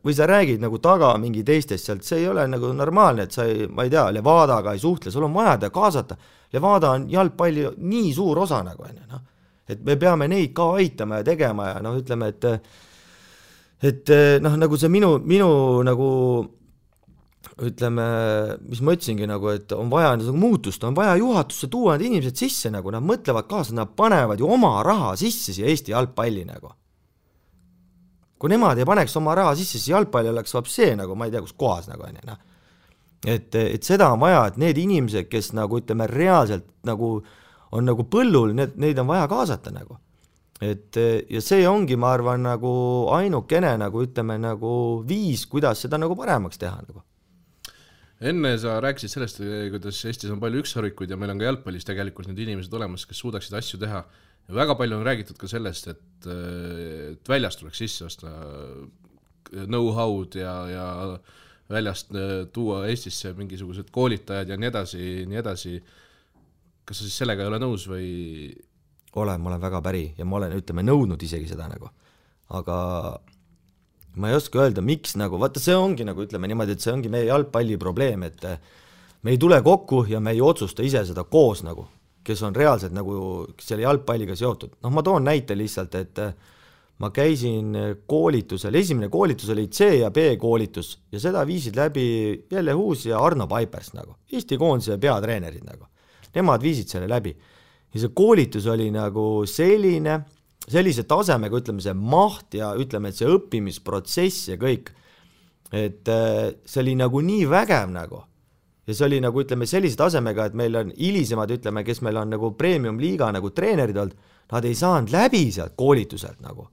või sa räägid nagu taga mingi teistest sealt, see ei ole nagu normaalne, et sa ei, ma ei tea, Levadaga ei suhtle, sul on vaja kaasata. Levada on jalgpalli nii suur osa nagu on, noh. Et me peame neid ka aitama ja tegema ja noh, ütleme, et noh, nagu see minu nagu ütleme, mis ma ütlesingi nagu, et on vaja nagu muutust, on vaja juhatusse tuua need inimesed sisse nagu, nad mõtlevad kaasa, nad panevad ju oma raha sisse siia Eesti jalgpalli nagu. kui nemad ei paneks oma raha sisse, siis jalgpalli oleks vapsee nagu, ma ei tea, kus kohas nagu on. Et seda on vaja, et need inimesed, kes nagu ütleme reaalselt nagu on nagu põllul, neid on vaja kaasata nagu. Ja see ongi, ma arvan, nagu ainukene nagu ütleme nagu viis, kuidas seda nagu paremaks teha nagu. Enne sa rääkisid sellest, kuidas Eestis on palju ükssarvikuid ja meil on ka jalgpallis tegelikult need inimesed olemas, kes suudaksid asju teha. Ja väga palju on räägitud ka sellest, et väljast tuleks sisse osta know-how'd ja väljast tuua Eestisse mingisugused koolitajad ja nii edasi. Kas sa siis sellega ei ole nõus või? Ma olen väga päri ja ma olen, ütleme, nõudnud isegi seda nagu. Aga ma ei oska öelda, miks nagu, vaata see ongi nagu ütleme niimoodi, et see ongi meie jalgpalli probleem, et me ei tule kokku ja me ei otsusta ise seda koos nagu, kes on reaalselt nagu selle jalgpalliga seotud. Noh, ma toon näite lihtsalt, et ma käisin koolitusel, esimene koolitus oli C ja B koolitus ja seda viisid läbi Jelle Huus ja Arno Paipers nagu, Eesti koondise peatreenerid nagu. Nemad viisid selle läbi. Ja see koolitus oli nagu sellise tasemega, ütleme see maht ja ütleme, et see õppimisprotsess ja kõik, et see oli nagu nii vägev nagu. Ja see oli nagu, ütleme, sellise tasemega, et meil on hilisemad, ütleme, kes meil on nagu premium-liiga nagu treenerid olnud, nad ei saanud läbi sealt koolituselt nagu.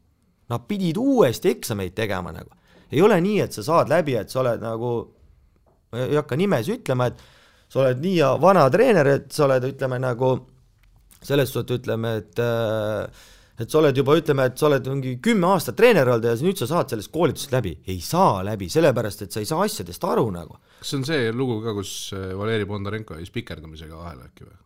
Nad pidid uuesti eksameid tegema nagu. Ei ole nii, et sa saad läbi, et sa oled nagu, ei hakka nimes ütlema, et sa oled nii vana treener, et sa oled, ütleme, nagu selles suhtes ütleme, et sa oled juba, ütleme, et sa oled mingi 10 aastat treener olnud ja nüüd sa saad sellest koolitusest läbi. Ei saa läbi, sellepärast, et sa ei saa asjadest aru nagu. Kas see on see lugu ka, kus Valeri Bondarenko jäi spikerdamisega vahele äkki või?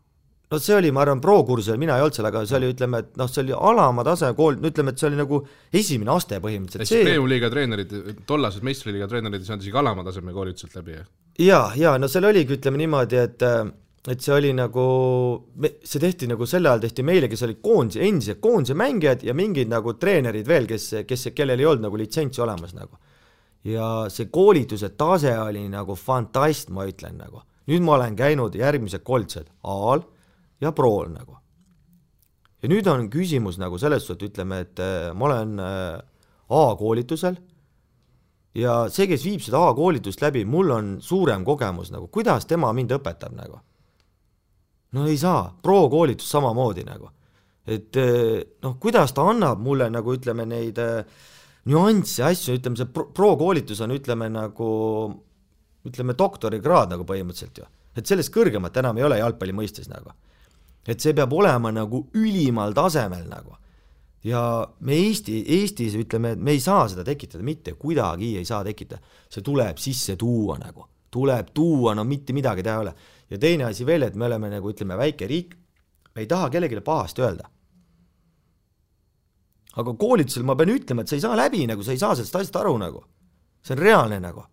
No see oli, ma arvan, pro-kursusel, mina ei olnud seal, aga see oli, ütleme, et noh, see oli alama tase kool, ütleme, et see oli nagu esimene aste põhimõtteliselt. See premium-liiga treenerid, tollased meistriliiga treenerid ei saanud isegi alama taseme koolituselt läbi, jah? Ja, no seal oligi, ütleme niimoodi, et see oli nagu, see tehti nagu selle ajal tehti meile, kes oli endised koondise mängijad ja mingid nagu treenerid veel, kellel ei olnud nagu litsentsi olemas nagu. Ja see koolituse tase oli nagu fantast, ma ütlen nagu. Nüüd ma olen käinud järgmised koolitused A-l ja Pro-l nagu. Ja nüüd on küsimus nagu selles suhtes, ütleme, et ma olen A-koolitusel ja see, kes viib seda A-koolitust läbi, mul on suurem kogemus nagu, kuidas tema mind õpetab nagu. No ei saa, pro-koolitus samamoodi nagu. Et noh, kuidas ta annab mulle nagu ütleme neid nüansse asju, ütleme see pro-koolitus on ütleme nagu ütleme doktorikraad nagu põhimõtteliselt ju. Et sellest kõrgemat enam ei ole jalgpalli mõistes nagu. Et see peab olema nagu ülimal tasemel nagu. Ja me Eestis ütleme, et me ei saa seda tekitada, mitte kuidagi ei saa tekitada. See tuleb sisse tuua nagu. Tuleb tuua, no mitte midagi teha ole. Ja teine asi veel, et me oleme nagu ütleme väike riik, me ei taha kellegile pahasti öelda. Aga koolitusel ma pean ütlema, et sa ei saa läbi nagu, sa ei saa sellest asjast aru nagu. See on reaalne nagu.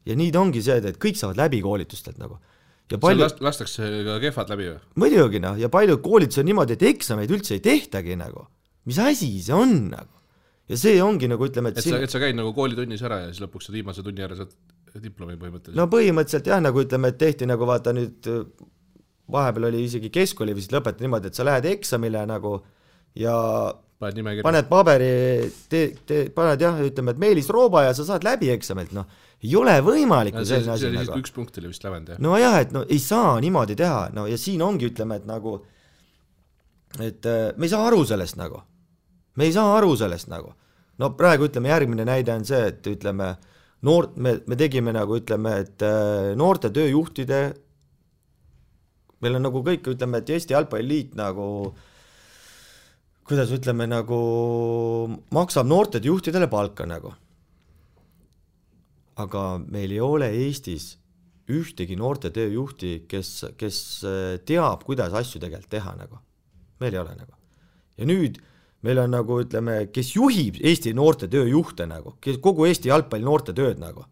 Ja nii ongi see, et kõik saavad läbi koolitustelt nagu. Ja palju... lastakse ka kehvad läbi või? Muidugi noh, ja palju koolitus on niimoodi, et eksameid üldse ei tehtagi nagu. Mis asi see on nagu? Ja see ongi nagu ütleme, et sa käid nagu koolitunnis ära ja siis lõpuks sa viimase tunni ära saad diplomi põhimõtteliselt. No põhimõtteliselt jah, nagu ütleme, et tehti nagu vaata nüüd, vahepeal oli isegi keskkooli vist lõpetati niimoodi, et sa lähed eksamile nagu ja paned paberi, paned jah, ütleme, et Meelis Rooba ja sa saad läbi eksamilt, noh, ei ole võimalik. See oli nagu. Üks punkt oli vist lävend, jah? No jah, et no ei saa niimoodi teha, no ja siin ongi ütleme, et nagu, et me ei saa aru sellest nagu. Me ei saa aru sellest nagu. No praegu ütleme, järgmine näide on see, et ütleme, me tegime nagu ütleme, et noorte tööjuhtide, meil on nagu kõik, ütleme, et Eesti Jalgpalliliit nagu, kuidas ütleme, nagu maksab noorte juhtidele palka nagu. Aga meil ei ole Eestis ühtegi noorte tööjuhti, kes teab, kuidas asju tegelikult teha nagu. Meil ei ole nagu. Ja nüüd meil on nagu, ütleme, kes juhib Eesti noorte tööjuhte nagu, kes kogu Eesti jalgpalli noorte tööd nagu.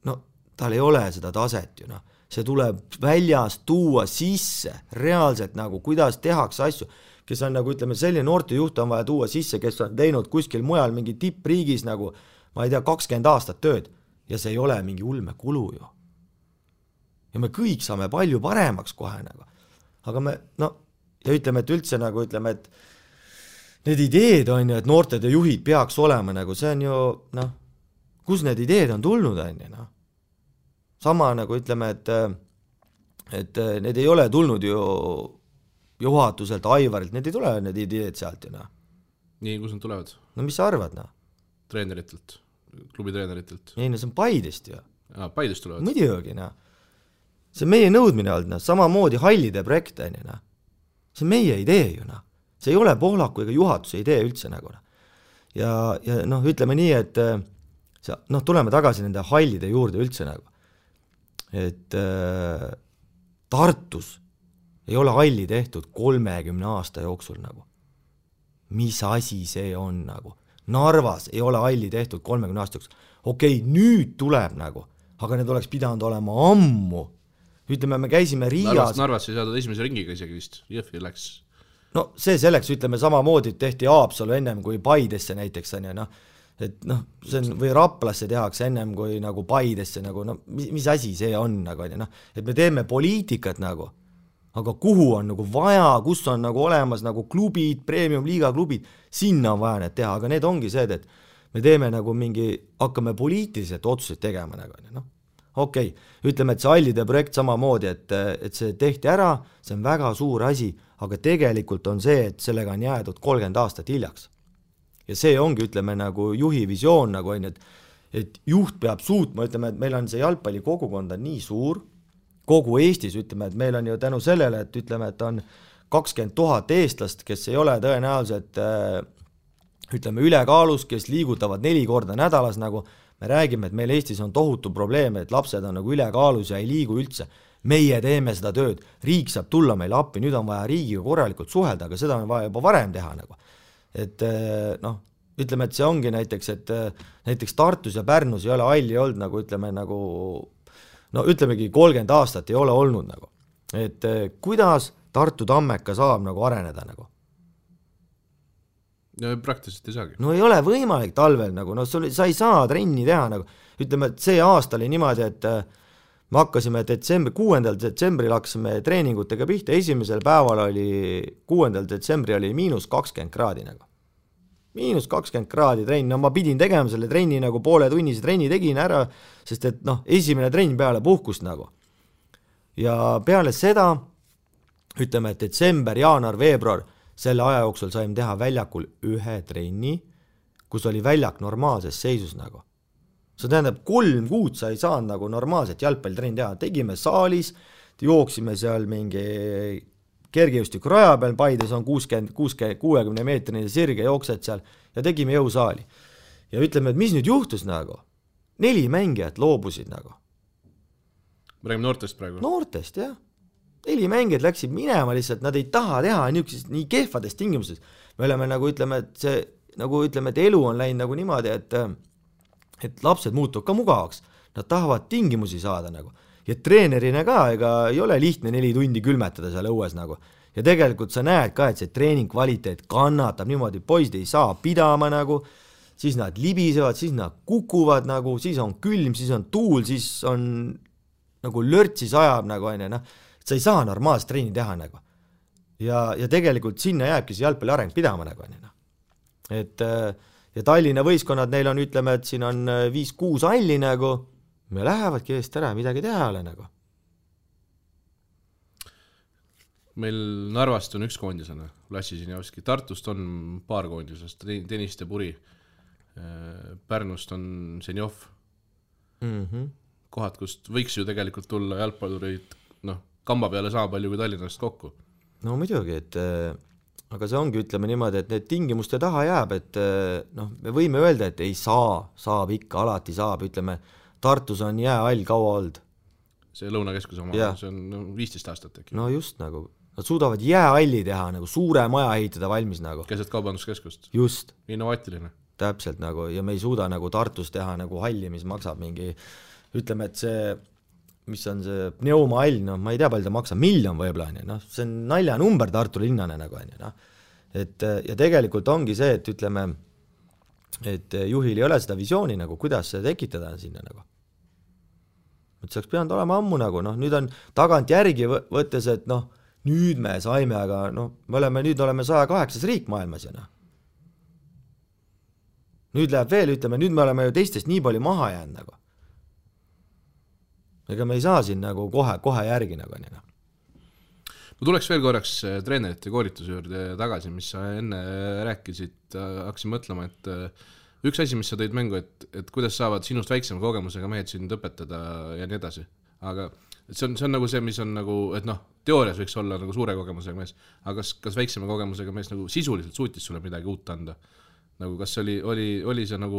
No, tal ei ole seda taset ju, noh. See tuleb väljast tuua sisse, reaalselt nagu, kuidas tehakse asju, kes on nagu, ütleme, selline noorte juht on vaja tuua sisse, kes on teinud kuskil mujal mingi tippriigis nagu, ma ei tea, 20 aastat tööd ja see ei ole mingi ulme kulu ju. Ja me kõik saame palju paremaks kohe nagu. Aga me, no, ja ütleme, et üldse nagu ütleme, et need ideed on ju, et noortede juhid peaks olema nagu, see on ju noh, kus need ideed on tulnud on ju noh. Sama nagu ütleme, et need ei ole tulnud ju juhatuselt, Aivarilt, need ei tule need ideed sealt ju noh. Nii, kus nad tulevad? No mis sa arvad noh? Treeneritelt, klubi treeneritelt. Ei, no see on Paidest ju. Paidest tulevad? Muidugi noh. See on meie nõudmine olnud noh, samamoodi hallide projekt on ju noh. See on meie idee ju noh. See ei ole Pohlaku ega juhatuse idee üldse nagu noh. Ja noh, ütleme nii, et noh, tuleme tagasi nende hallide juurde üldse nagu. Et Tartus ei ole halli tehtud 30 aasta jooksul nagu. Mis asi see on nagu? Narvas ei ole halli tehtud 30 aasta jooksul. Okei, nüüd tuleb nagu, aga need oleks pidanud olema ammu. Ütleme, me käisime Riias. Narvas ei saadud esimese ringiga isegi vist, Jõhvi läks. No see selleks, ütleme samamoodi tehti Haapsalu ennem kui Paidesse näiteks on ja noh, et noh, see on, või Raplasse tehakse ennem kui nagu Paidesse nagu, no mis asi see on nagu on ja noh, et me teeme poliitikat nagu, aga kuhu on nagu vaja, kus on nagu olemas nagu klubid, premium-liiga klubid, sinna on vaja need teha, aga need ongi see, et me teeme nagu mingi, hakkame poliitiliselt otsuseid tegema nagu on ja noh. Okei, ütleme, et see hallide projekt samamoodi, et see tehti ära, see on väga suur asi, aga tegelikult on see, et sellega on jäädud 30 aastat hiljaks. Ja see ongi, ütleme, nagu juhi visioon, nagu on, et juht peab suutma, ütleme, et meil on see jalgpalli kogukond on nii suur, kogu Eestis, ütleme, et meil on ju tänu sellele, et ütleme, et on 20 000 eestlast, kes ei ole tõenäoliselt, ütleme, ülekaalus, kes liigutavad 4 korda nädalas nagu, me räägime, et meil Eestis on tohutu probleem, et lapsed on nagu ülekaalus ja ei liigu üldse. Meie teeme seda tööd, riik saab tulla meile appi, nüüd on vaja riigiga korralikult suhelda, aga seda on vaja juba varem teha nagu. Et noh, ütleme, et see ongi näiteks, et näiteks Tartus ja Pärnus ei ole halli olnud nagu, ütleme nagu, no ütlemegi 30 aastat ei ole olnud nagu. Et kuidas Tartu Tammeka saab nagu areneda nagu? No praktiliselt ei saagi. No ei ole võimalik talvel nagu, no sa ei saa trenni teha nagu, ütleme, et see aasta oli niimoodi, et me hakkasime 6. detsembril hakkasime treeningutega pihta, esimesel päeval oli 6. detsembri oli -20 kraadi nagu. -20 kraadi trenn, no ma pidin tegema selle trenni nagu poole tunnise trenni tegin ära, sest et noh, esimene trenn peale puhkust nagu. Ja peale seda, ütleme, et detsember, jaanuar, veebruar, selle aja jooksul saime teha väljakul 1 trenni, kus oli väljak normaalses seisus nagu. See tähendab, 3 kuud sa ei saanud nagu normaalselt jalgpallitrenni teha. Tegime saalis, jooksime seal mingi kergejõustiku raja peal, Paides on 60 meetrine sirge, jooksed seal ja tegime jõusaali. Ja ütleme, et mis nüüd juhtus nagu? 4 mängijat loobusid nagu. Me räägime noortest praegu? Noortest, jah. 4 mängijad läksid minema lihtsalt, nad ei taha teha nii kehvades tingimustes. Me oleme nagu ütleme, et see, nagu ütleme, et elu on läinud nagu niimoodi, et lapsed muutuvad ka mugavaks. Nad tahavad tingimusi saada nagu. Ja treenerina ka, ega ei ole lihtne 4 tundi külmetada seal õues nagu. Ja tegelikult sa näed ka, et see treening kvaliteet kannatab niimoodi, poisid ei saa pidama nagu, siis nad libisevad, siis nad kukuvad nagu, siis on külm, siis on tuul, siis on nagu lörtsis ajab nagu aine, noh. Sa ei saa normaalselt treeni teha nagu. Ja tegelikult sinna jääbki see jalgpalli areng pidama nagu on. Et ja Tallinna võistkonnad, neil on, ütleme, et siin on 5-6 halli nagu, me lähevadki eest ära, midagi teha ole nagu. Meil Narvast on 1 koondisena, Lassi Sinjavski, Tartust on 2 koondisest, Tõniste Puri, Pärnust on Senjov. Kohad, kust võiks ju tegelikult tulla jalgpallureid, noh, kamba peale sama palju kui Tallinnast kokku. No muidugi, et aga see ongi, ütleme niimoodi, et need tingimuste taha jääb, et noh, me võime öelda, et ei saa, saab ikka, alati saab, ütleme, Tartus on jäähall kaua olnud. See Lõunakeskus oma, see on 15 aastat äkki. No just nagu, nad suudavad jäähalli teha, nagu suure maja ehitada valmis nagu. Keset kaubanduskeskust. Just. Innovaatiline. Täpselt nagu, ja me ei suuda nagu Tartus teha nagu halli, mis maksab mingi, ütleme, et see mis on see pneumahall, no ma ei tea, palju ta maksab, 1 miljon võib-olla, noh, see on naljanumber Tartu linnane nagu, noh. Et ja tegelikult ongi see, et ütleme, et juhil ei ole seda visiooni nagu, kuidas see tekitada sinna nagu. Et see oleks pidanud olema ammu nagu, noh, nüüd on tagant järgi võttes, et noh, nüüd me saime, aga noh, nüüd oleme 108 riik maailmas ja noh, nüüd läheb veel, ütleme, nüüd me oleme ju teistest nii palju maha jäänud nagu. Ega me ei saa siin nagu kohe järgi nagu nii. Ma tuleks veel korraks treenerite koolituse juurde tagasi, mis sa enne rääkisid, hakkasin mõtlema, et üks asi, mis sa tõid mängu, et kuidas saavad sinust väiksema kogemusega mehed sind õpetada ja nii edasi, aga see on nagu see, mis on nagu, et noh, teoorias võiks olla nagu suure kogemusega mees, aga kas väiksema kogemusega mees nagu sisuliselt suutis sulle midagi uut anda? Nagu kas oli see nagu,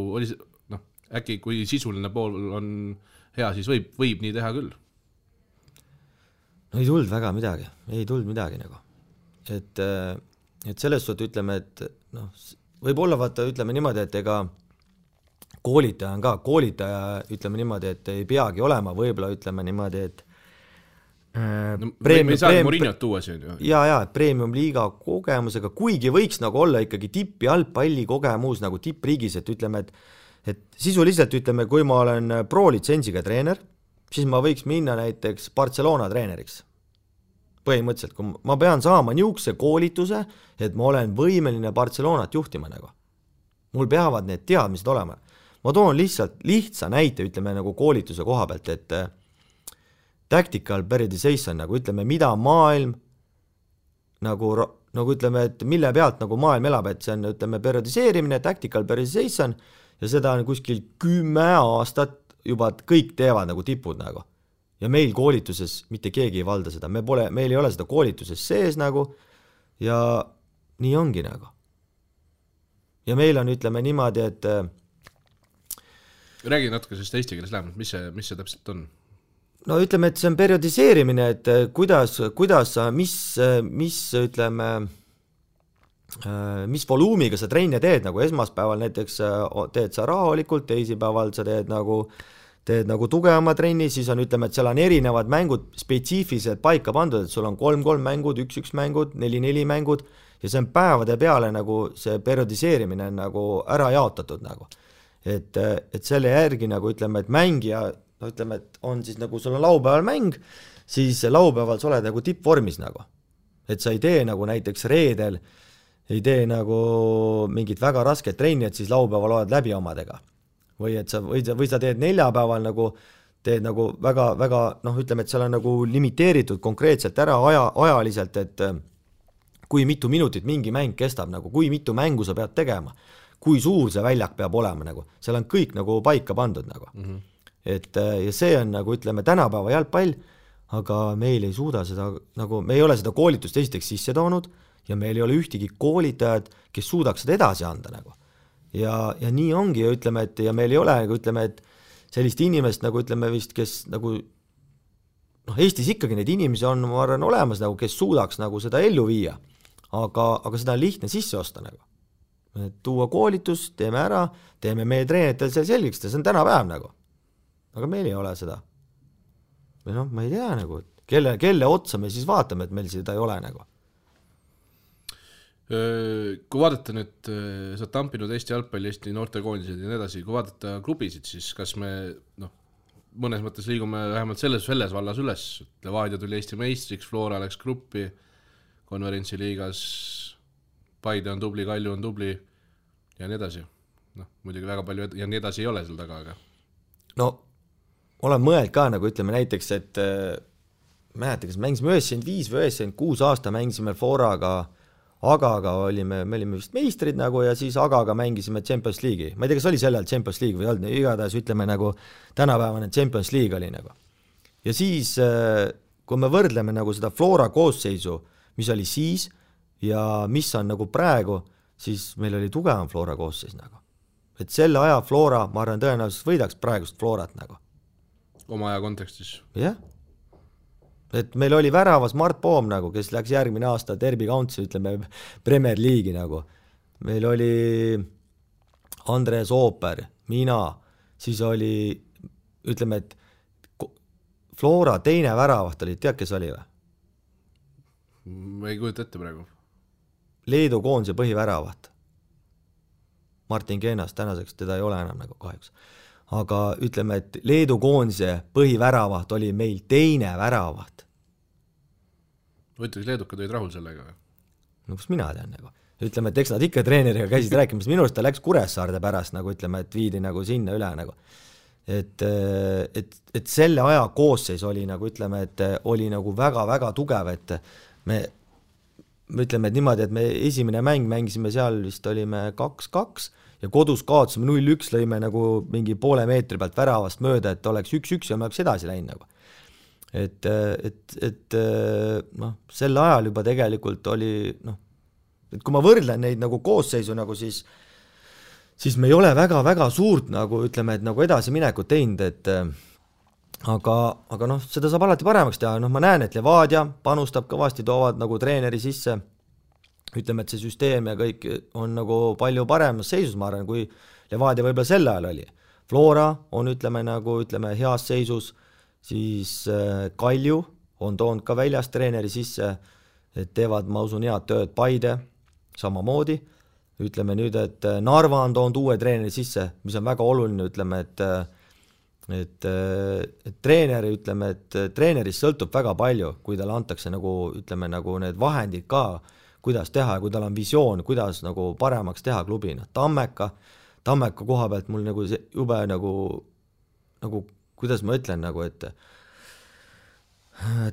noh, äkki kui sisuline pool on hea, siis võib nii teha küll? No ei tulnud väga midagi nagu. Et selles suhtes ütleme, et noh, võib-olla vaata, ütleme niimoodi, et ega koolitaja ütleme niimoodi, et ei peagi olema, võib-olla ütleme niimoodi, et me ei saa Mourinhot tuua siin ju. Ja, premium liiga kogemusega, kuigi võiks nagu olla ikkagi tipp jalgpalli kogemus nagu tippriigis, et ütleme, et sisuliselt ütleme, kui ma olen pro-litsensiga treener, siis ma võiks minna näiteks Barcelona treeneriks. Põhimõtteliselt, kui ma pean saama niisuguse koolituse, et ma olen võimeline Barcelonat juhtima nagu. Mul peavad need teadmised olema. Ma toon lihtsa näite, ütleme nagu koolituse koha pealt, et tactical periodization, nagu ütleme, mida maailm nagu ütleme, et mille pealt nagu maailm elab, et see on, ütleme, periodiseerimine, tactical periodization ja seda on kuskil 10 aastat juba kõik teevad nagu tipud nagu. Ja meil koolituses mitte keegi ei valda seda, meil ei ole seda koolituses sees nagu ja nii ongi nagu. Ja meil on, ütleme niimoodi, et räägi natuke sellest eesti keeles lähemalt, mis see täpselt on? No ütleme, et see on periodiseerimine, et kuidas sa, mis ütleme, mis voluumiga sa trenne teed, nagu esmaspäeval näiteks teed sa rahulikult, teisipäeval sa teed nagu tugevama trenni, siis on, ütleme, et seal on erinevad mängud spetsiifilised paika pandud, et sul on 3-3 mängud, 1-1 mängud, 4-4 mängud ja see on päevade peale nagu see periodiseerimine on nagu ära jaotatud nagu. Et selle järgi nagu ütleme, et mängija no ütleme, et on siis nagu sul on laupäeval mäng, siis laupäeval sa oled nagu tippvormis nagu. Et sa ei tee nagu näiteks reedel, ei tee nagu mingit väga rasket trenni, et siis laupäeval oled läbi omadega. Või sa teed neljapäeval nagu, teed nagu väga, noh ütleme, et seal on nagu limiteeritud konkreetselt ära ajaliselt, et kui mitu minutit mingi mäng kestab, nagu kui mitu mängu sa pead tegema, kui suur see väljak peab olema, nagu seal on kõik nagu paika pandud nagu. Et ja see on nagu ütleme tänapäeva jalgpall, aga meil ei suuda seda, nagu me ei ole seda koolitust esiteks sisse toonud ja meil ei ole ühtegi koolitajad, kes suudaks seda edasi anda nagu. Ja nii ongi ja ütleme, et ja meil ei ole nagu ütleme, et sellist inimest nagu ütleme vist, kes nagu noh, Eestis ikkagi neid inimesi on, ma arvan, olemas nagu, kes suudaks nagu seda ellu viia, aga seda on lihtne sisse osta nagu. Tuua koolitus, teeme ära, teeme meie treenetel seal selgiks, see on tänapäev nagu. Aga meil ei ole seda. Või noh, ma ei tea nagu, kelle otsa me siis vaatame, et meil seda ei ole nagu. Kui vaadata nüüd, sa oled tampinud Eesti jalgpalli, Eesti noortekoondised ja nii edasi, kui vaadata klubisid, siis kas me mõnes mõttes liigume vähemalt selles vallas üles, Levadia tuli Eesti meistriks, Flora läks gruppi, konverentsi liigas, Paide on tubli, Kalju on tubli ja nii edasi. Muidugi väga palju ja nii edasi ei ole seal taga, aga no olen mõeld ka nagu ütleme näiteks, et mäletan, kas mängisime 95 või 96 aasta mängisime Floraga, Agaga me olime vist meistrid nagu ja siis Agaga mängisime Champions League'i. Ma ei tea, kas oli sellel Champions League või olnud, igatahes ütleme nagu tänapäevane Champions League oli nagu. Ja siis, kui me võrdleme nagu seda Flora koosseisu, mis oli siis ja mis on nagu praegu, siis meil oli tugevam Flora koosseis nagu. Et selle aja Flora, ma arvan, tõenäoliselt võidaks praegust Florat nagu. Oma aja kontekstis. Jah. Et meil oli väravas Mart Poom nagu, kes läks järgmine aasta Derby County, ütleme, Premier League'i nagu. Meil oli Andres Ooper, mina, siis oli, ütleme, et Flora teine väravaht oli, tead, kes oli või? Ma ei kujuta ette praegu. Leedu koondise põhiväravaht. Martin Keenas, tänaseks teda ei ole enam nagu kahjuks. Aga ütleme, et Leedu koondise põhiväravaht oli meil teine väravaht. Võtaks leedukad olid rahul sellega või? No kus mina tean nagu. ütleme, et eks nad ikka treeneriga käisid rääkimas, minu arust ta läks Kuressaarde pärast nagu ütleme, et viidi nagu sinna üle nagu. Et selle aja koosseis oli nagu ütleme, et oli nagu väga-väga tugev, et me ütleme, et niimoodi, et me esimene mäng mängisime seal vist olime 2-2 ja kodus kaotasime 0-1, lõime nagu mingi poole meetri pealt väravast mööda, et oleks 1-1 ja me oleks edasi läinud nagu. Et noh, sel ajal juba tegelikult oli noh, et kui ma võrdlen neid nagu koosseisu nagu siis me ei ole väga-väga suurt nagu ütleme, et nagu edasiminekut teinud, et aga noh, seda saab alati paremaks teha, noh ma näen, et Levadia panustab kõvasti, toovad nagu treeneri sisse, ütleme, et see süsteem ja kõik on nagu palju paremas seisus, ma arvan, kui Levadia võib-olla sel ajal oli. Flora on ütleme heas seisus, siis Kalju on toonud ka väljast treeneri sisse, et teevad, ma usun, head tööd Paide, samamoodi, ütleme nüüd, et Narva on toonud uue treeneri sisse, mis on väga oluline, ütleme, et treeneri, ütleme, et treenerist sõltub väga palju, kui talle antakse nagu, ütleme, nagu need vahendid ka, kuidas teha ja kui tal on visioon, kuidas nagu paremaks teha klubina. Tammeka koha pealt mul nagu jube nagu, kuidas ma ütlen, nagu, et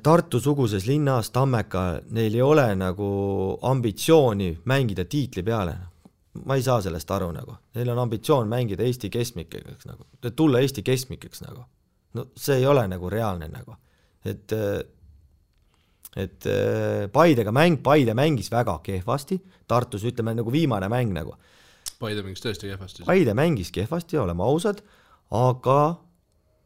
Tartu-suguses linnas Tammeka, neil ei ole nagu ambitsiooni mängida tiitli peale. Ma ei saa sellest aru nagu. Neil on ambitsioon mängida Eesti keskmikeks nagu. Tulla Eesti keskmikeks nagu. No see ei ole nagu reaalne nagu. Et Paide mängis väga kehvasti. Tartus ütleme nagu viimane mäng nagu. Paide mängis tõesti kehvasti. Paide mängis kehvasti, oleme ausad, aga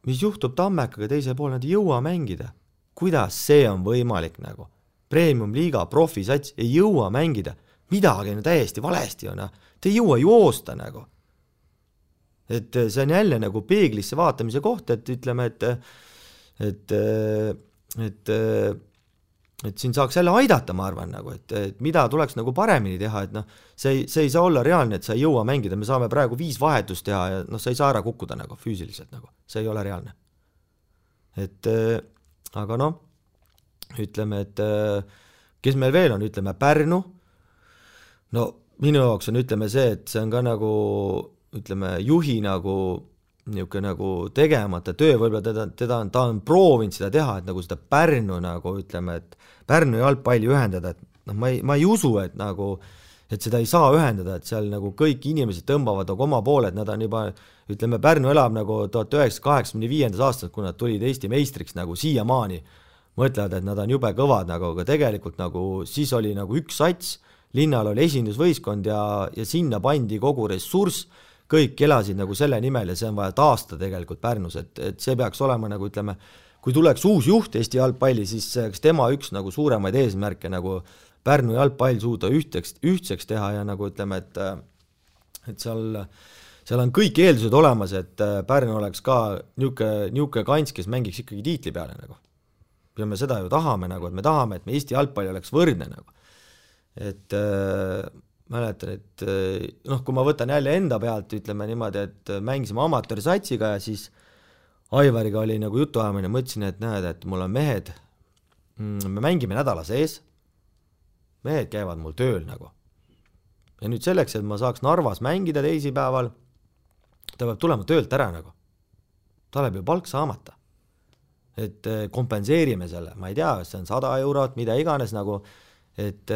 mis juhtub Tammekaga teise pool, nad ei jõua mängida. Kuidas see on võimalik nagu? Premium-liiga, profisats ei jõua mängida. Midagi on täiesti valesti on. Te ei jõua joosta nagu. Et see on jälle nagu peeglisse vaatamise koht, et ütleme, et siin saaks jälle aidata, ma arvan, nagu, et mida tuleks nagu paremini teha, et noh, see ei saa olla reaalne, et sa ei jõua mängida, me saame praegu 5 vahetust teha ja noh, sa ei saa ära kukkuda nagu füüsiliselt nagu, see ei ole reaalne. Et aga noh, ütleme, et kes meil veel on, ütleme Pärnu, no minu jaoks on, ütleme see, et see on ka nagu, ütleme, juhi nagu niisugune nagu tegemata töö, võib-olla ta on proovinud seda teha, et nagu seda Pärnu nagu, ütleme, et Pärnu jalgpalli ühendada, et noh, ma ei usu, et nagu, et seda ei saa ühendada, et seal nagu kõik inimesed tõmbavad nagu oma poole, et nad on juba, ütleme, Pärnu elab nagu 1985. aastast, kui nad tulid Eesti meistriks nagu siiamaani, mõtlevad, et nad on jube kõvad nagu, aga tegelikult nagu siis oli nagu üks sats, linnal oli esindusvõistkond ja sinna pandi kogu ressurss, kõik elasid nagu selle nimel ja see on vaja taastada tegelikult Pärnus, et see peaks olema nagu, ütleme, kui tuleks uus juht Eesti jalgpalli, siis tema üks nagu suuremaid eesmärke nagu Pärnu jalgpall suuda ühtseks teha ja nagu ütleme, et seal on kõik eeldused olemas, et Pärnu oleks ka niuke kants, kes mängiks ikkagi tiitli peale nagu. Ja me seda ju tahame nagu, et me tahame, et me Eesti jalgpalli oleks võrdne nagu. Et mäletan, et noh, kui ma võtan jälle enda pealt, ütleme niimoodi, et mängisime amatöörsatsiga ja siis Aivariga oli nagu jutuajamine, mõtlesin, et näed, et mul on mehed, me mängime nädala sees, mehed käivad mul tööl nagu. Ja nüüd selleks, et ma saaks Narvas mängida teisipäeval, ta peab tulema töölt ära nagu. Ta läheb ju palk saamata. Et kompenseerime selle, ma ei tea, see on 100 eurot, mida iganes nagu, et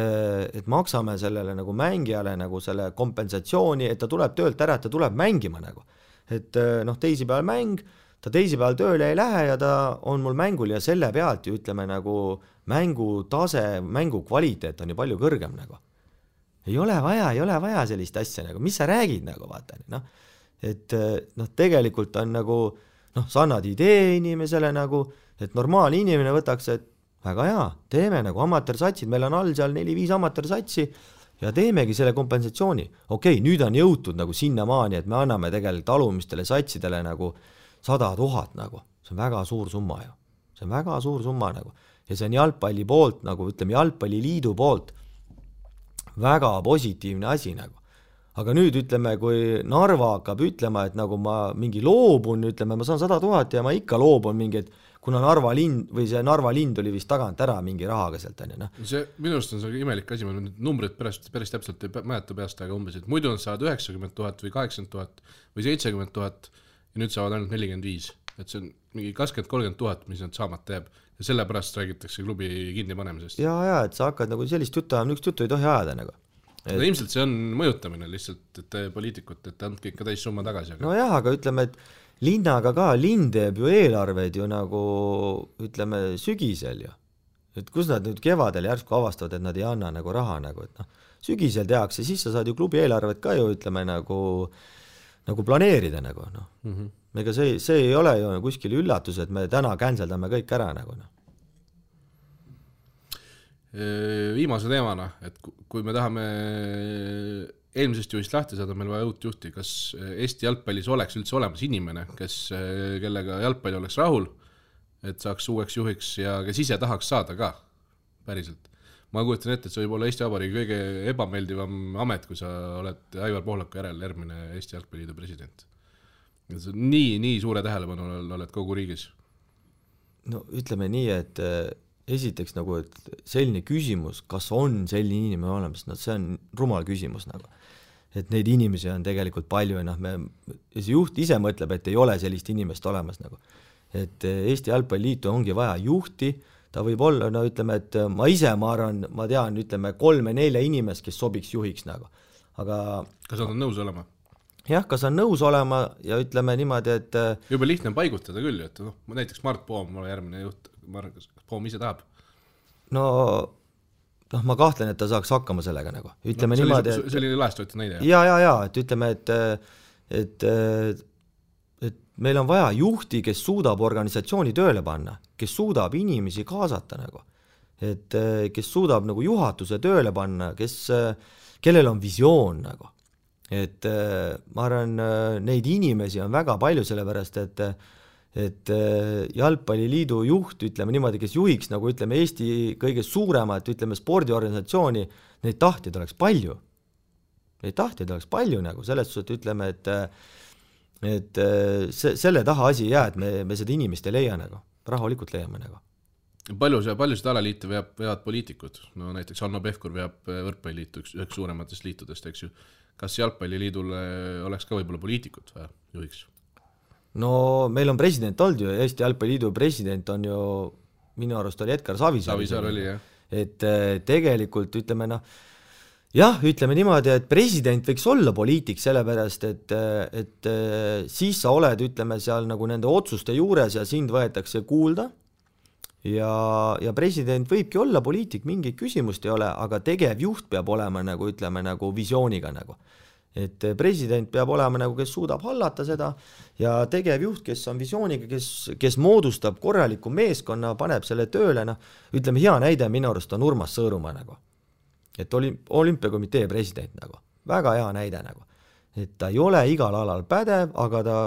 maksame sellele nagu mängijale nagu selle kompensatsiooni, et ta tuleb töölt ära, et ta tuleb mängima nagu. Et noh, teisipäeval mäng, ta teisipäeval tööle ei lähe ja ta on mul mängul ja selle pealt ju ütleme nagu mängu tase, mängu kvaliteet on ju palju kõrgem nagu. Ei ole vaja sellist asja nagu, mis sa räägid nagu vaata, noh. Et noh, tegelikult on nagu, noh, sa annad idee inimesele nagu, et normaalne inimene võtaks, et väga hea, teeme nagu amatöörsatsid, meil on all seal 4-5 amatöörsatsi ja teemegi selle kompensatsiooni. Okei, nüüd on jõutud nagu sinnamaani, et me anname tegelikult alumistele satsidele nagu 100 000 nagu. See on väga suur summa ju. See on väga suur summa nagu. Ja see on jalgpalli poolt nagu, ütleme jalgpalliliidu poolt väga positiivne asi nagu. Aga nüüd ütleme, kui Narva hakkab ütlema, et nagu ma mingi loobun, ütleme, ma saan 100 000 ja ma ikka loobun mingi, et kuna Narva lind või see Narva lind oli vist tagant ära mingi rahaga sealt, on ju, noh. See minu arust on see imelik asi, ma nüüd numbrid päris täpselt ei mäleta peast, aga umbes, et muidu nad saavad 90 000 või 80 000 või 70 000 ja nüüd saavad ainult 45, et see on mingi 20-30 000, mis nad saamata jääb ja sellepärast räägitakse klubi kinni panemisest. Ja, et sa hakkad nagu sellist juttu ajama, niisugust juttu ei tohi ajada nagu. No ilmselt see on mõjutamine lihtsalt, et poliitikut, et andke ikka täis summa tagasi. Aga... No jah, aga ütleme, et linnaga ka, linn teeb ju eelarveid ju nagu, ütleme, sügisel ju. Et kus nad nüüd kevadel järsku avastavad, et nad ei anna nagu raha nagu, et noh, sügisel tehakse, siis sa saad ju klubi eelarvet ka ju, ütleme, nagu planeerida nagu, noh. Ega see ei ole ju kuskil üllatus, et me täna canceldame kõik ära nagu, noh. Viimase teemana, et kui me tahame eelmisest juhist lahti saada, meil vaja uut juhti, kas Eesti jalgpallis oleks üldse olemas inimene, kellega jalgpalli oleks rahul, et saaks uueks juhiks ja kes ise tahaks saada ka, päriselt. Ma kujutan ette, et see võib olla Eesti Vabariigi kõige ebameeldivam amet, kui sa oled Aivar Pohlaku järel järgmine Eesti Jalgpalliliidu president. Nii suure tähelepanu oled kogu riigis. No ütleme nii, et esiteks nagu, et selline küsimus, kas on selline inimene olemas, no see on rumal küsimus nagu. Et neid inimesi on tegelikult palju ja noh, see juht ise mõtleb, et ei ole sellist inimest olemas nagu. Et Eesti Jalgpalliliitu ongi vaja juhti, ta võib olla, no ütleme, et ma arvan, ma tean, ütleme 3-4 inimest, kes sobiks juhiks nagu. Aga kas nad on nõus olema? Jah, kas on nõus olema ja ütleme niimoodi, et juba lihtne on paigutada küll, et noh, näiteks Mart Poom, mulle järgmine juht, kas Poom ise tahab? No ma kahtlen, et ta saaks hakkama sellega nagu. Ütleme no, niimoodi, et... See oli laestööti näide. Ja, et ütleme, et meil on vaja juhti, kes suudab organisatsiooni tööle panna, kes suudab inimesi kaasata nagu. Et kes suudab nagu juhatuse tööle panna, kellel on visioon nagu. Et ma arvan, neid inimesi on väga palju sellepärast, et Jalgpalliliidu juht, ütleme niimoodi, kes juhiks nagu ütleme Eesti kõige suuremat, ütleme spordiorganisatsiooni, neid tahtjaid oleks palju. Neid tahtjaid oleks palju nagu, selles suhtes ütleme, et selle taha asi ei jää, et me seda inimest ei leia nagu, rahulikult leiame nagu. Palju seda alaliite veavad poliitikud? No näiteks Hanno Pevkur veab võrkpalliliitu üks suurematest liitudest, eks ju. Kas Jalgpalliliidul oleks ka võib-olla poliitikut või juhiks? No meil on president olnud ju, Eesti Jalgpalliliidu president on ju, minu arust oli Edgar Savisaar. Savisaar oli, jah. Et tegelikult ütleme, ütleme niimoodi, et president võiks olla poliitik sellepärast, et siis sa oled, ütleme, seal nagu nende otsuste juures ja sind võetakse kuulda ja president võibki olla poliitik, mingi küsimust ei ole, aga tegevjuht peab olema nagu, ütleme, nagu visiooniga nagu. Et president peab olema nagu, kes suudab hallata seda ja tegevjuht, kes on visiooniga, kes moodustab korraliku meeskonna, paneb selle tööle, ütleme hea näide minu arust on Urmas Sõõrumaa nagu. Et olümpiakomitee president nagu, väga hea näide nagu. Et ta ei ole igal alal pädev, aga ta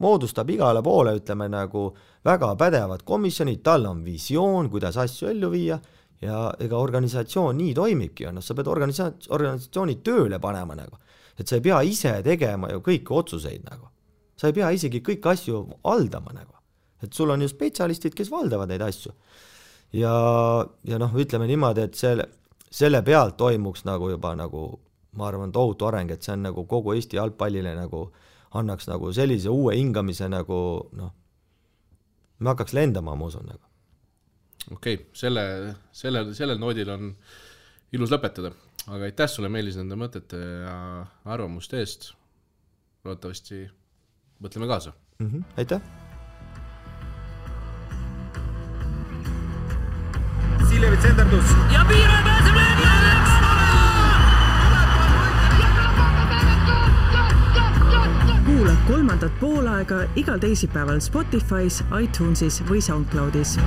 moodustab igale poole, ütleme nagu väga pädevad komisjonid, tal on visioon, kuidas asju ellu viia ja ega organisatsioon nii toimibki ja sa pead organisatsiooni tööle panema nagu. Et sa ei pea ise tegema ju kõiki otsuseid nagu. Sa ei pea isegi kõik asju haldama nagu. Et sul on ju spetsialistid, kes valdavad neid asju. Ja ütleme niimoodi, et selle pealt toimuks nagu juba nagu, ma arvan, tohutu areng, et see on nagu kogu Eesti jalgpallile nagu annaks nagu sellise uue hingamise nagu, me hakkaks lendama, ma usun nagu. Okei, sellel noodil on ilus lõpetada. Aga aitäh sulle, Meelis, nende mõtete ja arvamuste eest. Loodetavasti mõtleme kaasa. Aitäh! Siljevi tsenderdus. Ja piire pääseb Leegioniks! Kuula kolmandat poolaega igal teisipäeval Spotify's, iTunesis või SoundCloudis.